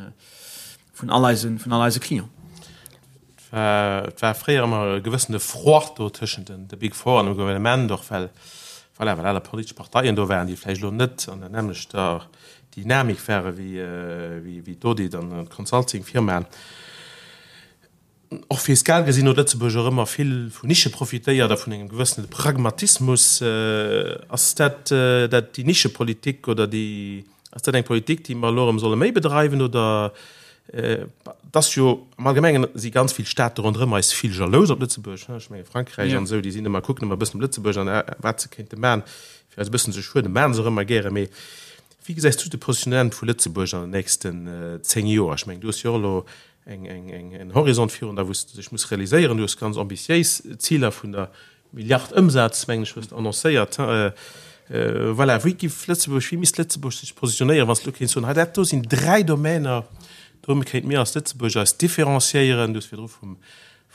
D: vun all eisen, vun all eise Clienten.
C: Et war fréier ëmmer e gewëssene Froid do tëschent den de Big Four an dem Gouvernement, och well, voilà, well aner politesch Parteien do waren, déi vläicht elo net an der nämmlechter Dynamik ware wéi, wéi d'Audit an d'Consulting-Firmaen. Och fiskal gesinn huet Lëtzebuerg och ëmmer vill vun Nische profitéiert a vun engem gewëssene Pragmatismus. Ass dat dat déi Nischepolitik oder déi, ass dat eng Politik, déi mer elo erëm solle méi bedreiwen oder et ass jo am Allgemengen si ganz vill Staate ronderëm eis vill jalous op Lëtzebuerg, ech menge Frankräich an esou, déi sinn ëmmer, kucken ëmmer e bëssen op Lëtzebuerg an wat se kéinte man, fir eis e bëssen ze schueden, maachen se och ëmmer gäre. Mee wéi gesäis du de Positionnement vu Lëtzebuerg an den nächsten 10 Joer? Ech mengen, du hues jo och elo eng, eng, eng, en Horizont virun der, wou s de sech muss realiséieren. Du hues ganz ambitiéis Ziler vun der Milliard Ëmsaz, mengen ech, hues de annoncéiert. Voilà, wéi giff Lëtzebuerg, wéi misst Lëtzebuerg sech positionéieren, wann s de elo kéints soen, hei dat do sinn dräi Domäner, do kéinte mir als Lëtzebuerg eis différenciéieren. Du hues virdru vum,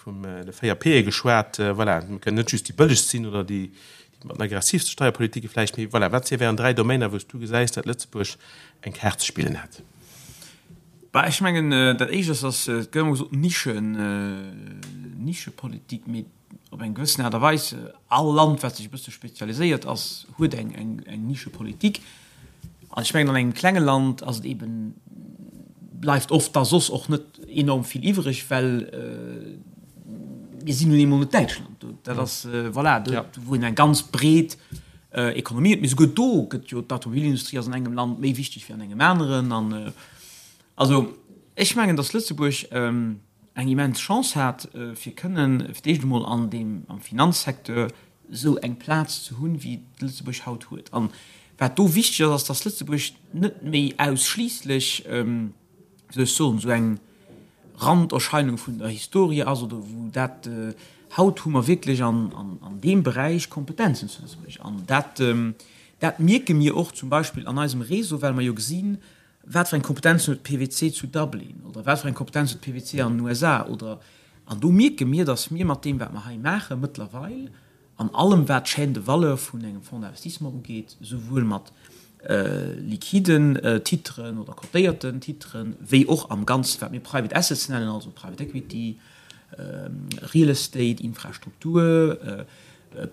C: vum de 4 P'e geschwat. Voilà, mir kënnen net just déi bëllegst sinn oder déi, déi mat den aggressivste Steierpolitike vläicht, mee voilà, wat wären dräi Domäner, wou s du gesäis, datt Lëtzebuerg eng Kaart ze spillen hätt?
D: Bah, ech mengen, dat Éischt ass, dass, et gëtt ëmmer gesot, Nischen, Nischepolitik, mee op eng gewëssen Aart a Weis, all Land, wat sech e bësse spezialiséiert ass, huet eng, eng, eng Nischepolitik. An ech mengen, an engem klenge Land ass et eeben, bleift oft da soss och net enorm vill iwwreg, well mir sinn nun eemol net Däitschland. Dat ass, voilà, do, wou een eng ganz breet. Ekonomie huet. Mee souguer do gëtt jo d'Automobilindustrie ass an engem Land méi wichteg wéi an engem aneren. An also ech mengen, datt Lëtzebuerg eng immens Chance hat, fir kënnen fir d'éischt emol an deem, am Finanzsecteur esou eng Plaz ze hunn, wéi Lëtzebuerg haut huet. An wat do wichteg ass, ass, datt Lëtzebuerg net méi ausschliisslech, wéi soll ech soen, esou eng Randerscheinung vun der Historie ass oder wou dat, haut hu mer wierklech an deem Beräich Kompetenzen zu Lëtzebuerg. An dat, dat mierke mir och zum Beispill an eisem Réseau, well mer jo gesinn, wat fir eng Kompetenzen huet PwC zu Dublin oder wat fir eng Kompetenz huet PwC an den USA oder, an do mierke mir, datt mir mat deem wat mer hei maache mëttlerweil an allem wat d'Chaîne de valeur vun engem Fonds d'investissement ugeet, souwuel mat liquiden Titren oder cotéierten Titren, wéi och am Ganzen, wat mir Private Assets nennen, also Private Equity, Real Estate, Infrastruktur,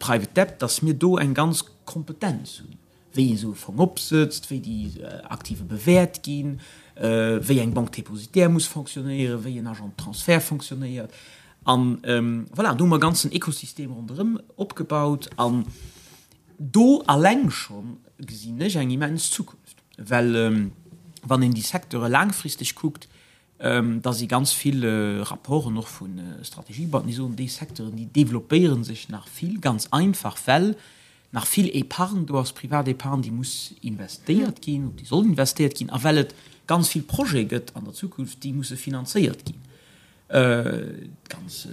D: Private Debt, datt mir do eng ganz Kompetenz hunn. wéi ee sou e Fong opsëtzt, wéi déi Aktive bewäert ginn, wéi eng Banque dépositaire muss fonctionnéieren, wéi en Agent de transfert fonctionnéiert. An voilà, do hu mer e ganzen Ekosystem ronderëm opgebaut. An do alleng scho gesinn ech eng immens Zukunft, well wann een déi Secteure laangfristeg kuckt, da si ganz vill Rapporten och vu Strategiebanken, déi soen, déi Secteuren, déi developpéiere sech nach vill, ganz einfach, well nach vill Épargne do ass, privat Épargne, déi muss investéiert ginn, déi soll investéiert ginn, a well et ganz vill Projete gëtt an der Zukunft, déi musse finanzéiert ginn, d'ganz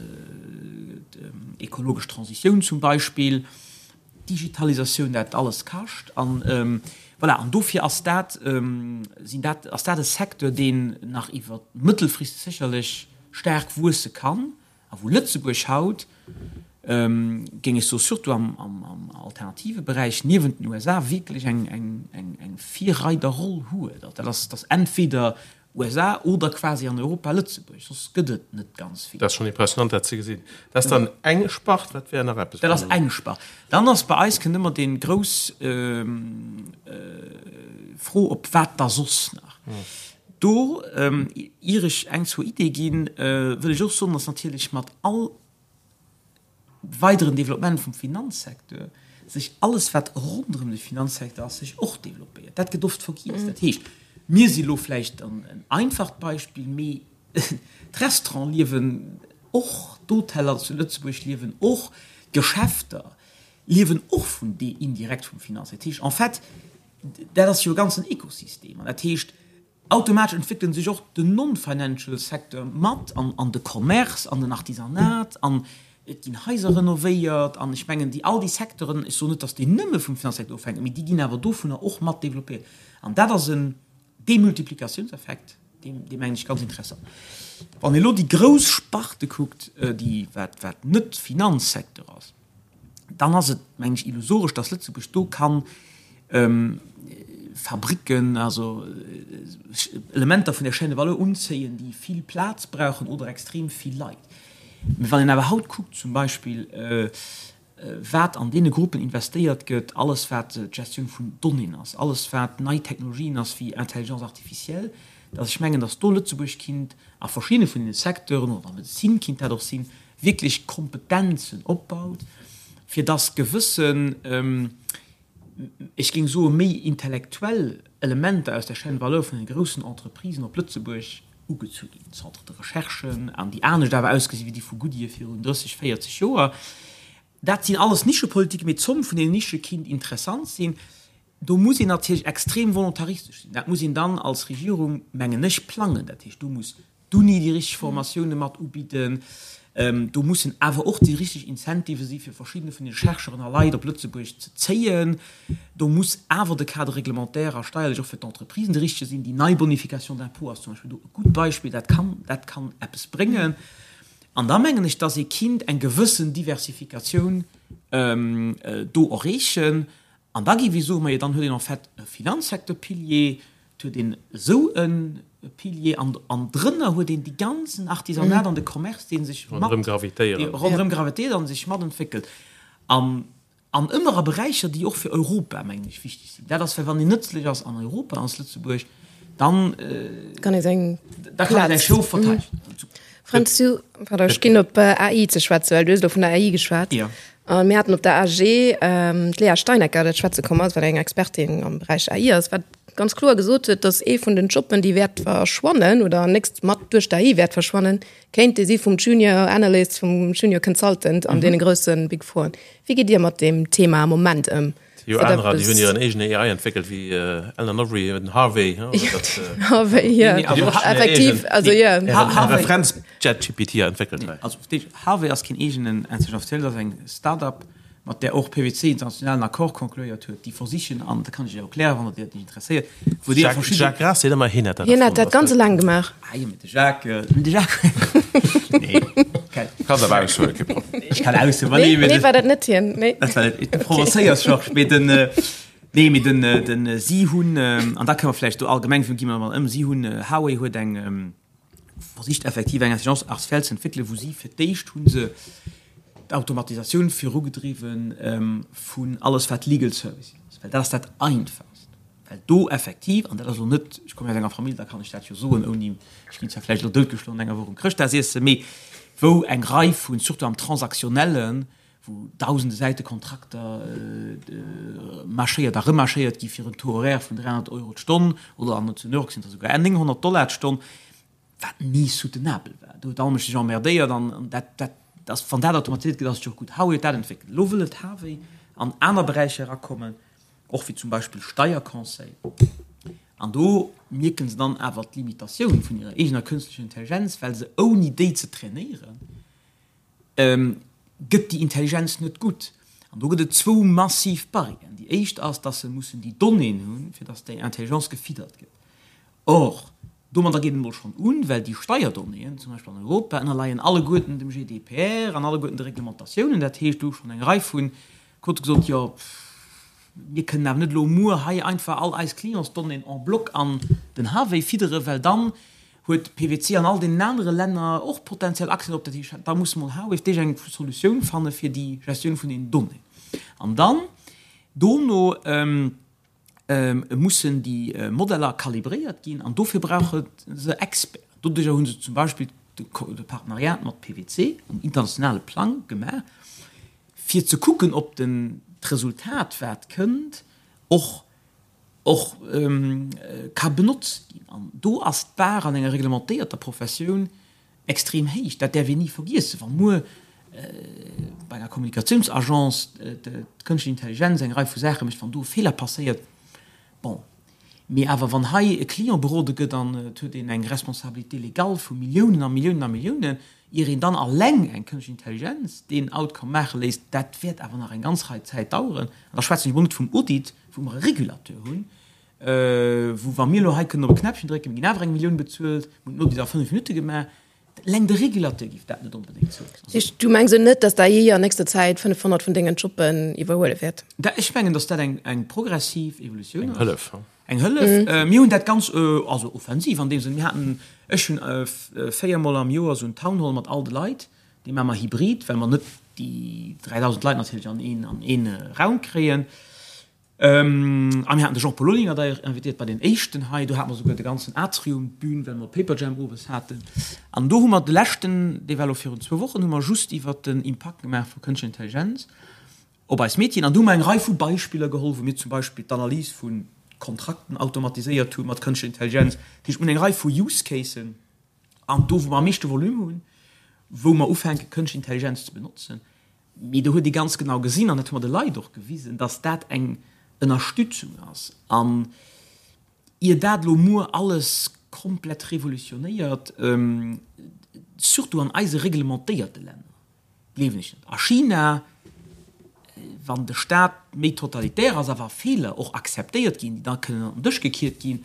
D: ekologesch Transitioun zum Beispill, d'Digitalisatioun, dat alles kascht. An voilà, an dofir ass dat, sinn dat, ass dat e Secteur, deen nach iwwer mëttelfristeg sécherlech staark wuesse kann a wou Lëtzebuerg haut, géing ech soen, surtout am, am, am alternative Beräich niewent den USA wierklech eng, eng, eng, eng Virreiderroll huet. Dat ass, dat ass entweder USA oder quasi an Europa Lëtzebuerg, soss gëtt et net ganz vill.
C: Dat ass schonn impressionant, dat ze gesinn. Dat ass dann eng Spart. Wat wär nach eppes?
D: Dat ass eng Spart. Dann ass bei eis, kënnt ëmmer dee grouss Fro op, wat da soss nach? Do, ier ech eng, zwou Iddie ginn, wëll ech och soen, datt natierlech mat all weideren Développement vum Finanzsecteur sech alles, wat ronderëm de Finanzsecteur ass, sech och développéiert. Dat gëtt oft vergiess. Dat heescht, mir si lo vläicht en einfacht Beispill, mee d'Restauranten liewen och, d'Hoteller zu Lëtzebuerg liewen och, d'Geschäfter liewen och vun dee indirekt vum Finanzsecteur. Dat heescht, en fait, dat ass jo e ganzen Ekosystem. An dat heescht, Automatesch entwéckelen sech och den non-financial Secteur mat an an de Commerce an den Artisanat an et ginn Haiser renovéiert an ech mengen déi all déi Secteuren, ech soen net, datt déi nëmme vum Finanzsecteur ofhänken, mee déi ginn awer dovunner och mat développéiert an dat ass en Demultiplikatiounseffekt, deen dee mengen ech ganz interessant. Wann ee elo déi grouss Sparte kuckt, déi wat wat net Finanzsecteur ass, dann ass et, mengen ech, illusoresch, dass Lëtzebuerg do kann Fabricken, also Elementer vun der Chaîne de valeur unzéien, déi vill Plaz brauchen oder extrem vill Leit. Mä wann een awer haut kuckt zum Beispill, wat an deene Gruppen investéiert gëtt, alles wat d'Gestioun vun Donnéeën ass, alles wat nei Technologien ass wéi Intelligence artificielle, dass ech mengen, dass do Lëtzebuerg kinnt a verschiddene vun deene Secteuren, oder an der Medezin kinnt dat och sinn, wierklech Kompetenzen opbaut, fir dass gewëssen, ech géing soe méi intellektuell Elementer aus der Chaîne de valeur vun de groussen Entreprisen op Lëtzebuerg ugezu ginn, Centres de recherchen, an déi anescht awer ausgesi wéi déi vu Goodyear virun 30, 40 Joer. Dat sinn alles Nischepolitiken, mee d'Zomm vun deenen Nische kinnt interessant sinn. Do muss een natierlech extrem volontaristesch sinn. Dat muss een dann als Regierung, mengen ech, plangen. Dat heescht, do muss d'Uni déi richteg Formatioune mat ubidden. Do mussen awer och déi richteg Incentivë si fir verschiddene vun de Chercheuren a Leit op Lëtzebuerg ze zéien. Do muss awer de Cadre réglementaire a steierlech och fir d'Entreprisen de richtege sinn. Déi nei Bonification d'impôt ass zum Beispill do e gutt Beispill. Dat kann, dat kann eppes bréngen. An da mengen ech, dass ee kinnt eng gewëssen Diversifikatioun do erreechen. An da gi, wéi soe mer jo, dann huet een en fait e Finanzsecteur-Pilier, et huet een esou e Pilier an, an drënner huet een déi ganzen Artisanat an de Commerce, dee sech mat,
C: Ronderëm gravitéieren.
D: dee ronderëm gravitéiert an sech matentwéckelt. An, an ëmmer a Beräicher, déi och fir Europa, mengen ech, wichteg sinn. Dat ass, well wann een nëtzlech ass an Europa, als Lëtzebuerg, dann,
B: Kann ee seng
D: da kann ee säi
B: Plaz.
D: Schof verteidegen.
B: Fränz, du, pardon, ech ginn op AI ze schwätzen, well du hues elo vun der AI geschwat.
D: Ja.
B: A mir haten op der AG d'Léa Steinecker, dat schwätze komm ass, wat eng Expertin am Beräich AI ass, wat ganz kloer gesot huet, datt ee vun den Jobben, déi wäert verschwannen oder nächst mat duerch d'AI wäert verschwannen, kéint dee si vum Junior Analyst, vum Junior Consultant an deene grousse Big Four. Wéi gitt Dir mat deem Thema am Moment ëm?
C: Jo, anerer, déi hunn hiren eegene AI entwéckelt, wéi Alan Overy, den Harvey.
B: Harvey, jo. Effektiv, also jo.
C: Referenz-ChatGPT entwéckelt hei.
D: Also Harvey ass keen eegenen Intelligence artificielle, dat ass eng Start-up, mat där och PwC international en Accord concluéiert huet, déi versichen, an dat kann ech Iech och erklären, wann der dat interesséiert,
C: wou déi a verschidde. Jacques Graas seet ëmmer, hien hätt dat
B: erfonnt. Hien hätt dat ganz eleng gemaach.
D: Ah jo, mee de Jacques, mee de Jacques, nee.
E: Kanns awer aushuelen, kee Problem.
D: Ech kann aushuelen, ma nee,
B: mee. Nee, war dat net hien, nee.
D: Dat war net, du provozéiers, Georges, mee den, nee, mee den, den, si hunn, an da kënne mer vläicht do allgemeng, gi mer emol ëm, si hunn, Huawei huet eng, versicht effektiv eng Intelligence artificielle ze entwéckelen, wou si fir d'éischt hu se d'Automatisatioun virugedriwwen vun alles wat Legal Services ass, well dat ass dat Einfachst, well do effektiv, an dat ass elo net, ech komme aus enger Famill, da kann ech dat jo soen ouni, ech ginn zwar vläicht elo doutgeschloen an enger Woch um Chrëschtdagsiessen, mee wou eng Rei vun, surtout am Transaktionnellen, wou dausende Säite Kontrakter marschéiert a remarschéiert gi fir en Taux horaire vun 300 Euro d'Stonn oder an zu New York sinn et der souguer 900 Dollar d'Stonn, wat ni soutenabel war. Do huet all Mënsch sech emmerdéiert an dat, dat ass, wann dat automatiséiert gëtt, ass et jo och gutt. Huawei huet dat entwéckelt. Elo wëll et Huawei an aner Beräicher erakommen, och wéi zum Beispill Steierconseil. An do mierke se dann awer d'Limitatioun vun hirer eegener kënstlecher Intelligenz, well se ouni déi ze trainéieren, gëtt déi Intelligenz net gutt. An do gëtt et zwou massiv Barrièren. Déi éischt ass, dass se mussen déi Donnéeën hunn, fir dass déi Intelligence gefiddert gëtt. Or, domadder geet et emol schonn un, well déi Steierdonnéeën, zum Beispill an Europa, ënnerleien alleguerten dem GDPR an alleguerten de Reglementatiounen. Dat heescht, do hu schonn eng Rei vu Quote gesot, jo, mir kënnen awer net elo muer hei einfach all eis Clientsdonnéeën en bloc an den Huawei fidderen, well dann huet PwC an all deenen anere Länner och potenziell Accès drop. Dat heescht, da muss mol Huawei fir d'éischt eng Solutioun fanne fir déi Gestioun vun den Donnéeën. An dann dono mussen déi Modeller kalibréiert ginn an dofir brauche se Experten. Doduerjer hu se zum Beispill de Partenariat mat PwC um internationale Plang gemaach, fir ze kucken, ob den d'Resultat, wat kënnt, och och ka benotzt ginn. An do ass d'Bar an enger reglementéierter Professioun extrem héich. Dat däerf een ni vergiessen. Wa muer bei enger Kommunikatiounsagence d'Kënschtlech Intelligenz eng Rei vu Saache mécht, wann do e Feeler passéiert, bon. Mee awer wann hei e Client berode gëtt an et huet een eng Responsabilité légale vu Milliounen a Milliounen a Milliounen, ier een dann alleng eng Kënschtlech Intelligenz deen Outcome maache léisst, dat wäert awer nach eng ganz Rei Zäit daueren. An da schwätzen ech emol net vum Audit, wou mer e Régulateur hunn, wou wa mir elo hei kënnen op e Knäppchen drécken, mir ginn awer eng Millioun bezuelt, mir hunn den Audit a 5 Minutte gemaach. Eleng de Régulateur géif dat net onbedéngt
B: zouloossen. Du mengs elo net, datt d'AI an nächster Zäit 500 vun dengen Jobben iwwerhuele wäert?
D: Ech mengen, datt dat eng progressiv Evolutioun ass.
C: Eng Hëllef.
D: Eng Hëllef. Mir hunn dat ganz, also offensiv an deem Sënn, mir haten, ech hunn véiermol am Joer esou en Town Hall mat all de Leit, dee maache mer hybrid, well mer net déi 3.000 Leit natierlech an een, an een Raum kréien. A mir haten de Jean-Paul Olinger d'ailleurs invitéiert bei deen éischten hei, do hate mer souguer de ganzen Atrium, d'Bün, well mer Paperjam owes haten. An do hu mer de leschten, dee war elo virun zwou Wochen, hu mer just iwwert den Impakt gemaach vu Kënschtlecher Intelligenz. Op eis Métieren. An do hu mer eng Rei vu Beispiller geholl, wou mir zum Beispill d'Analys vu Kontrakten automatiséiert hu mat Kënschtlecher Intelligenz. Dat heescht, mir hunn eng Rei vu Use Casen an do, wou mer am meeschte Volume hunn, wou mer ufänke Kënschtlech Intelligenz ze benotzen. Mee do huet ee ganz genau gesinn, an dat hu mer de Leit och gewisen, dass dat eng Ënnerstützung ass. An ier dat elo muer alles komplett revolutionéiert, surtout an eise reglementéierte Länner, Gleewen ech net. A China, wann de Staat méi totalitär ass a wa Feeler och akzeptéiert ginn, déi da kënnen an den Dësch gekiert ginn,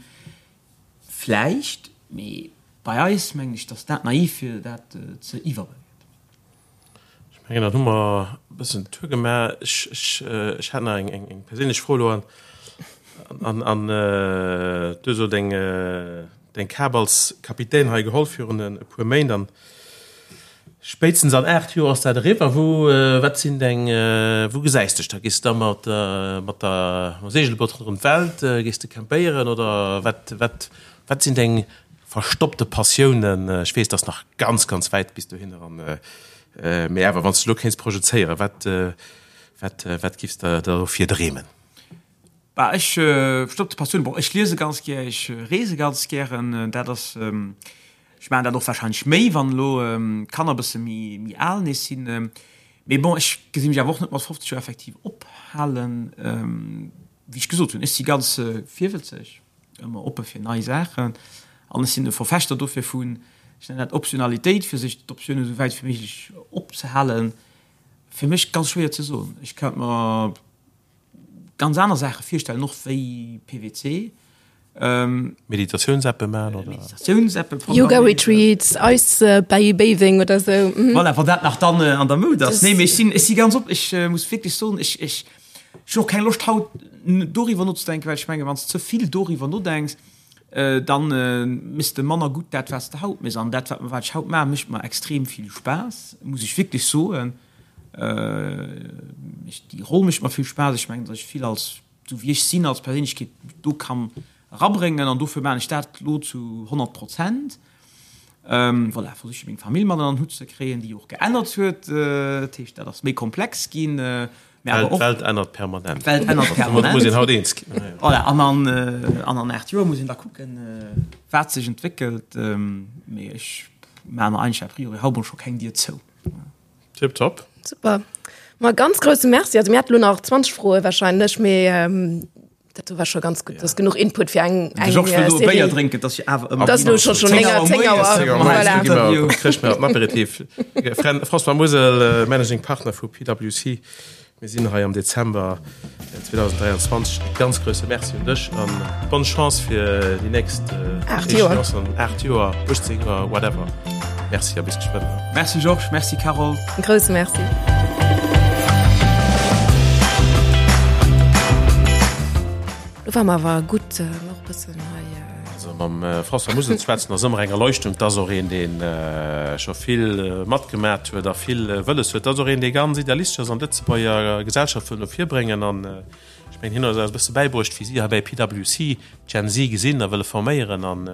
D: vläicht, mee bei eis mengen ech, datt dat naiv wier, dat ze iwwerbewäerten.
C: Ech mengen, dann hu mer e bëssen den Tour gemaach. Ech, ech, ech hat nach eng, eng perséinlech Fro elo an, an, an du hues elo deng, deng Kap als Kapitän hei geholl virun e puer Méint an Spéitstens an 8 Joer ass dat eriwwer. Wou, wat sinn deng, wou gesäis dech da? Gees de da mat, mat der, mam Segelboot ronderëm d'Welt? Gees de campéieren oder wat, wat, wat sinn deng verstoppte Passiounen? Ech weess, et ass nach ganz, ganz wäit bis dohinner an, mee awer, wann s de elo kéints projezéieren, wat, wat, wat giffs de der dofir dreemen?
D: Bah, ech, verstoppte Passiounen, bon, ech liese ganz gär, ech reese ganz gären, dat ass, ech maachen dat och warscheinlech méi, wann elo d'Kanner e bësse méi, méi al nees sinn. Mee bon, ech gesi mech awer och net mat 50 Joer effektiv ophalen. Wéi ech gesot hunn, ech si ganz virwëtzeg, ëmmer oppe fir nei Saachen an ech sinn e Verfechter dofir vun, ech nennen dat Optionalitéit, fir sech d'Optiounen esou wäit wéi méiglech opzehalen. Fir mech ganz schwéier ze soen. Ech kéint mer ganz aner Saache virstellen, och wéi PWC.
C: Meditatiouns-Appe maachen, oder?
D: Meditatiouns-Appe
B: programméieren. Yoga-Retreats, Ice Bathing oder sou.
D: Voilà, wann dat nach dann an der Moud ass. Nee, mee ech sinn, ech si ganz op, ech muss wierklech soen, ech, ech, ech hunn och keng Loscht haut doriwwer nozedenken, well ech mengen, wann s de ze vill doriwwer nodenks, dann méchs de manner gutt dat, wat s de haut méchs. An dat, wat, wat ech haut maachen, mécht mer extrem vill Spaass, muss ech wierklech soen. Déi Roll mécht mer vill Spaass. Ech mengen, datt ech vill als, esou wéi ech sinn als Perséinlechkeet, do kann erabréngen an dofir maachen ech dat elo zu 100 Prozent. Voilà, versiche meng Famill mat ënner den Hutt ze kréien, déi och geännert huet. Dat heescht, dat ass méi komplex ginn.
C: Mä awer och. D'Welt ännert permanent.
D: D'Welt ännert permanent.
C: Domat muss een haut eens ginn.
D: Voilà, an an, an an 8 Joer muss een da kucken, wat sech entwéckelt. Mee ech maachen mer eigentlech a priori haut mol scho keng Dier zou.
C: Tip top.
B: Super. Ma ganz grousse Merci. Also mir hätten lo nach 20 Froe wahrscheinlech, mee ähm, dat do war scho ganz gutt. Dat ass genuch Input fir eng
D: eng Georges wëll do e Béier drénken, dass je awer
B: ëmmer. Dat ass lo scho schon 9 Auer, 10 Auer.
C: Voilà. Kréich mir den Aperitif. François Musel, Managing Partner vu PwC. Mir sinn hei am Dezember 2023. E ganz grousse Merci un dech an bonne Chance fir déi nächst 8 Joer, 8 Joer, 18 Joer, whatever. Merci a bis geschwënn.
D: Merci Georges, merci Carole.
B: E grousse Merci. Lo war mer awer gutt och e bëssen hei.
C: Also mam François Musel ze schwätzen ass ëmmer eng Erleuchtung. Et ass och een, dee scho vill matgemat huet a vill wëlles huet. Et ass och een, dee ganz idealistesch ass an d'Lëtzebuerger Gesellschaft wëll no vir bréngen. An ech mengen, hien huet eis e bësse bäibruecht, wéi si hei bei PwC d'Gen Z gesinn a wëlle forméieren. An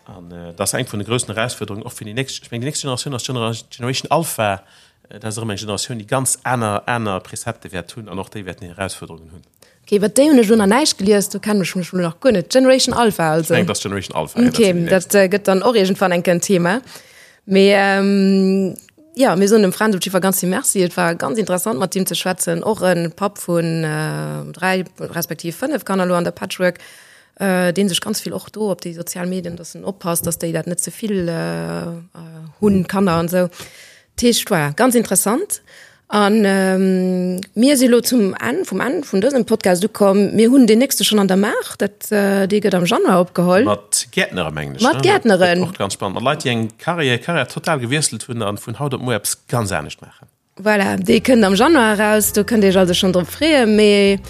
C: an et ass eng vun de groussen Erausfuerderungen och fir déi nächst, ech mengen, déi nächst Generatioun ass d'Generation Alpha. Dat ass erëm eng Generatioun, déi ganz aner aner Prezepte wäert hunn an och déi wäerten hir Erausfuerderungen hunn.
B: Ok, iwwer déi hunn ech elo nach näischt gelies, do kennen ech mech elo nach guer net. Generation Alpha also.
C: Ech mengen, dat ass Generation Alpha.
B: Ok, dat gëtt dann och iergendwann eng Kéier en Thema. Mee jo, mir soen dem Fränz op jiddwer Fall ganz vill Merci. Et war ganz interessant mat him ze schwätzen, och e Papp vun 3 respektiv 5 Kanner elo an der Patchwork, dee sech ganz vill och do op déi sozial Medien, dass en oppasst, dass déi dat net ze vill hunn, d'Kanner an esou. Dat heescht, voilà, ganz interessant. An mir si lo zum Enn vum Enn vun dësem Podcast ukomm. Mir hunn deen nächste schonn an der Maach, dat dee gëtt am Januar opgeholl.
C: Mat Gäertnere mengen
B: ech. Mat Gäertneren.
C: Och ganz spannend. Mat Leit, déi eng Carrière, Carrière total gewiesselt hunn an vun haut op muer eppes ganz anescht maachen.
B: Voilà, dee kënnt am Januar eraus. Do kënnt Dir Iech also schonn drop freeën. Mee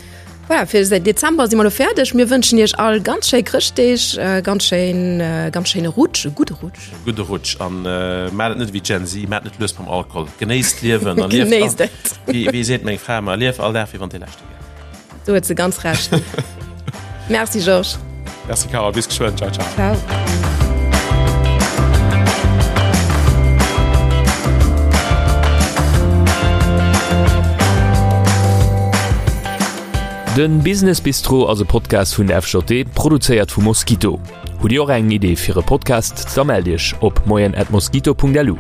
B: Voilà, fir de Dezember si mer lo fäerdeg. Mir wënschen Iech all ganz schéi Chrëschtdeeg, ganz schéin, ganz schéine Rutsch, e gudde Rutsch.
C: E gudde Rutsch an maacht et net ewéi d'Gen Z, maacht net lues mam Alkohol. Genéisst d'Liewen a lieft.
B: Genéisst et.
C: Wéi, wéi seet meng Fra ëmmer, lief all Dag wéi wann dee leschte wär.
B: Do huet se ganz Recht. Merci Georges.
C: Merci Carole, bis geschwënn. Ciao, ciao.
B: Ciao.
A: Den Business Bistro ass e Podcast vun der FJD, produzéiert vu Mosquito. Hutt Dir och eng Idee fir e Podcast? Da mellt Iech op moien@mosquito.lu.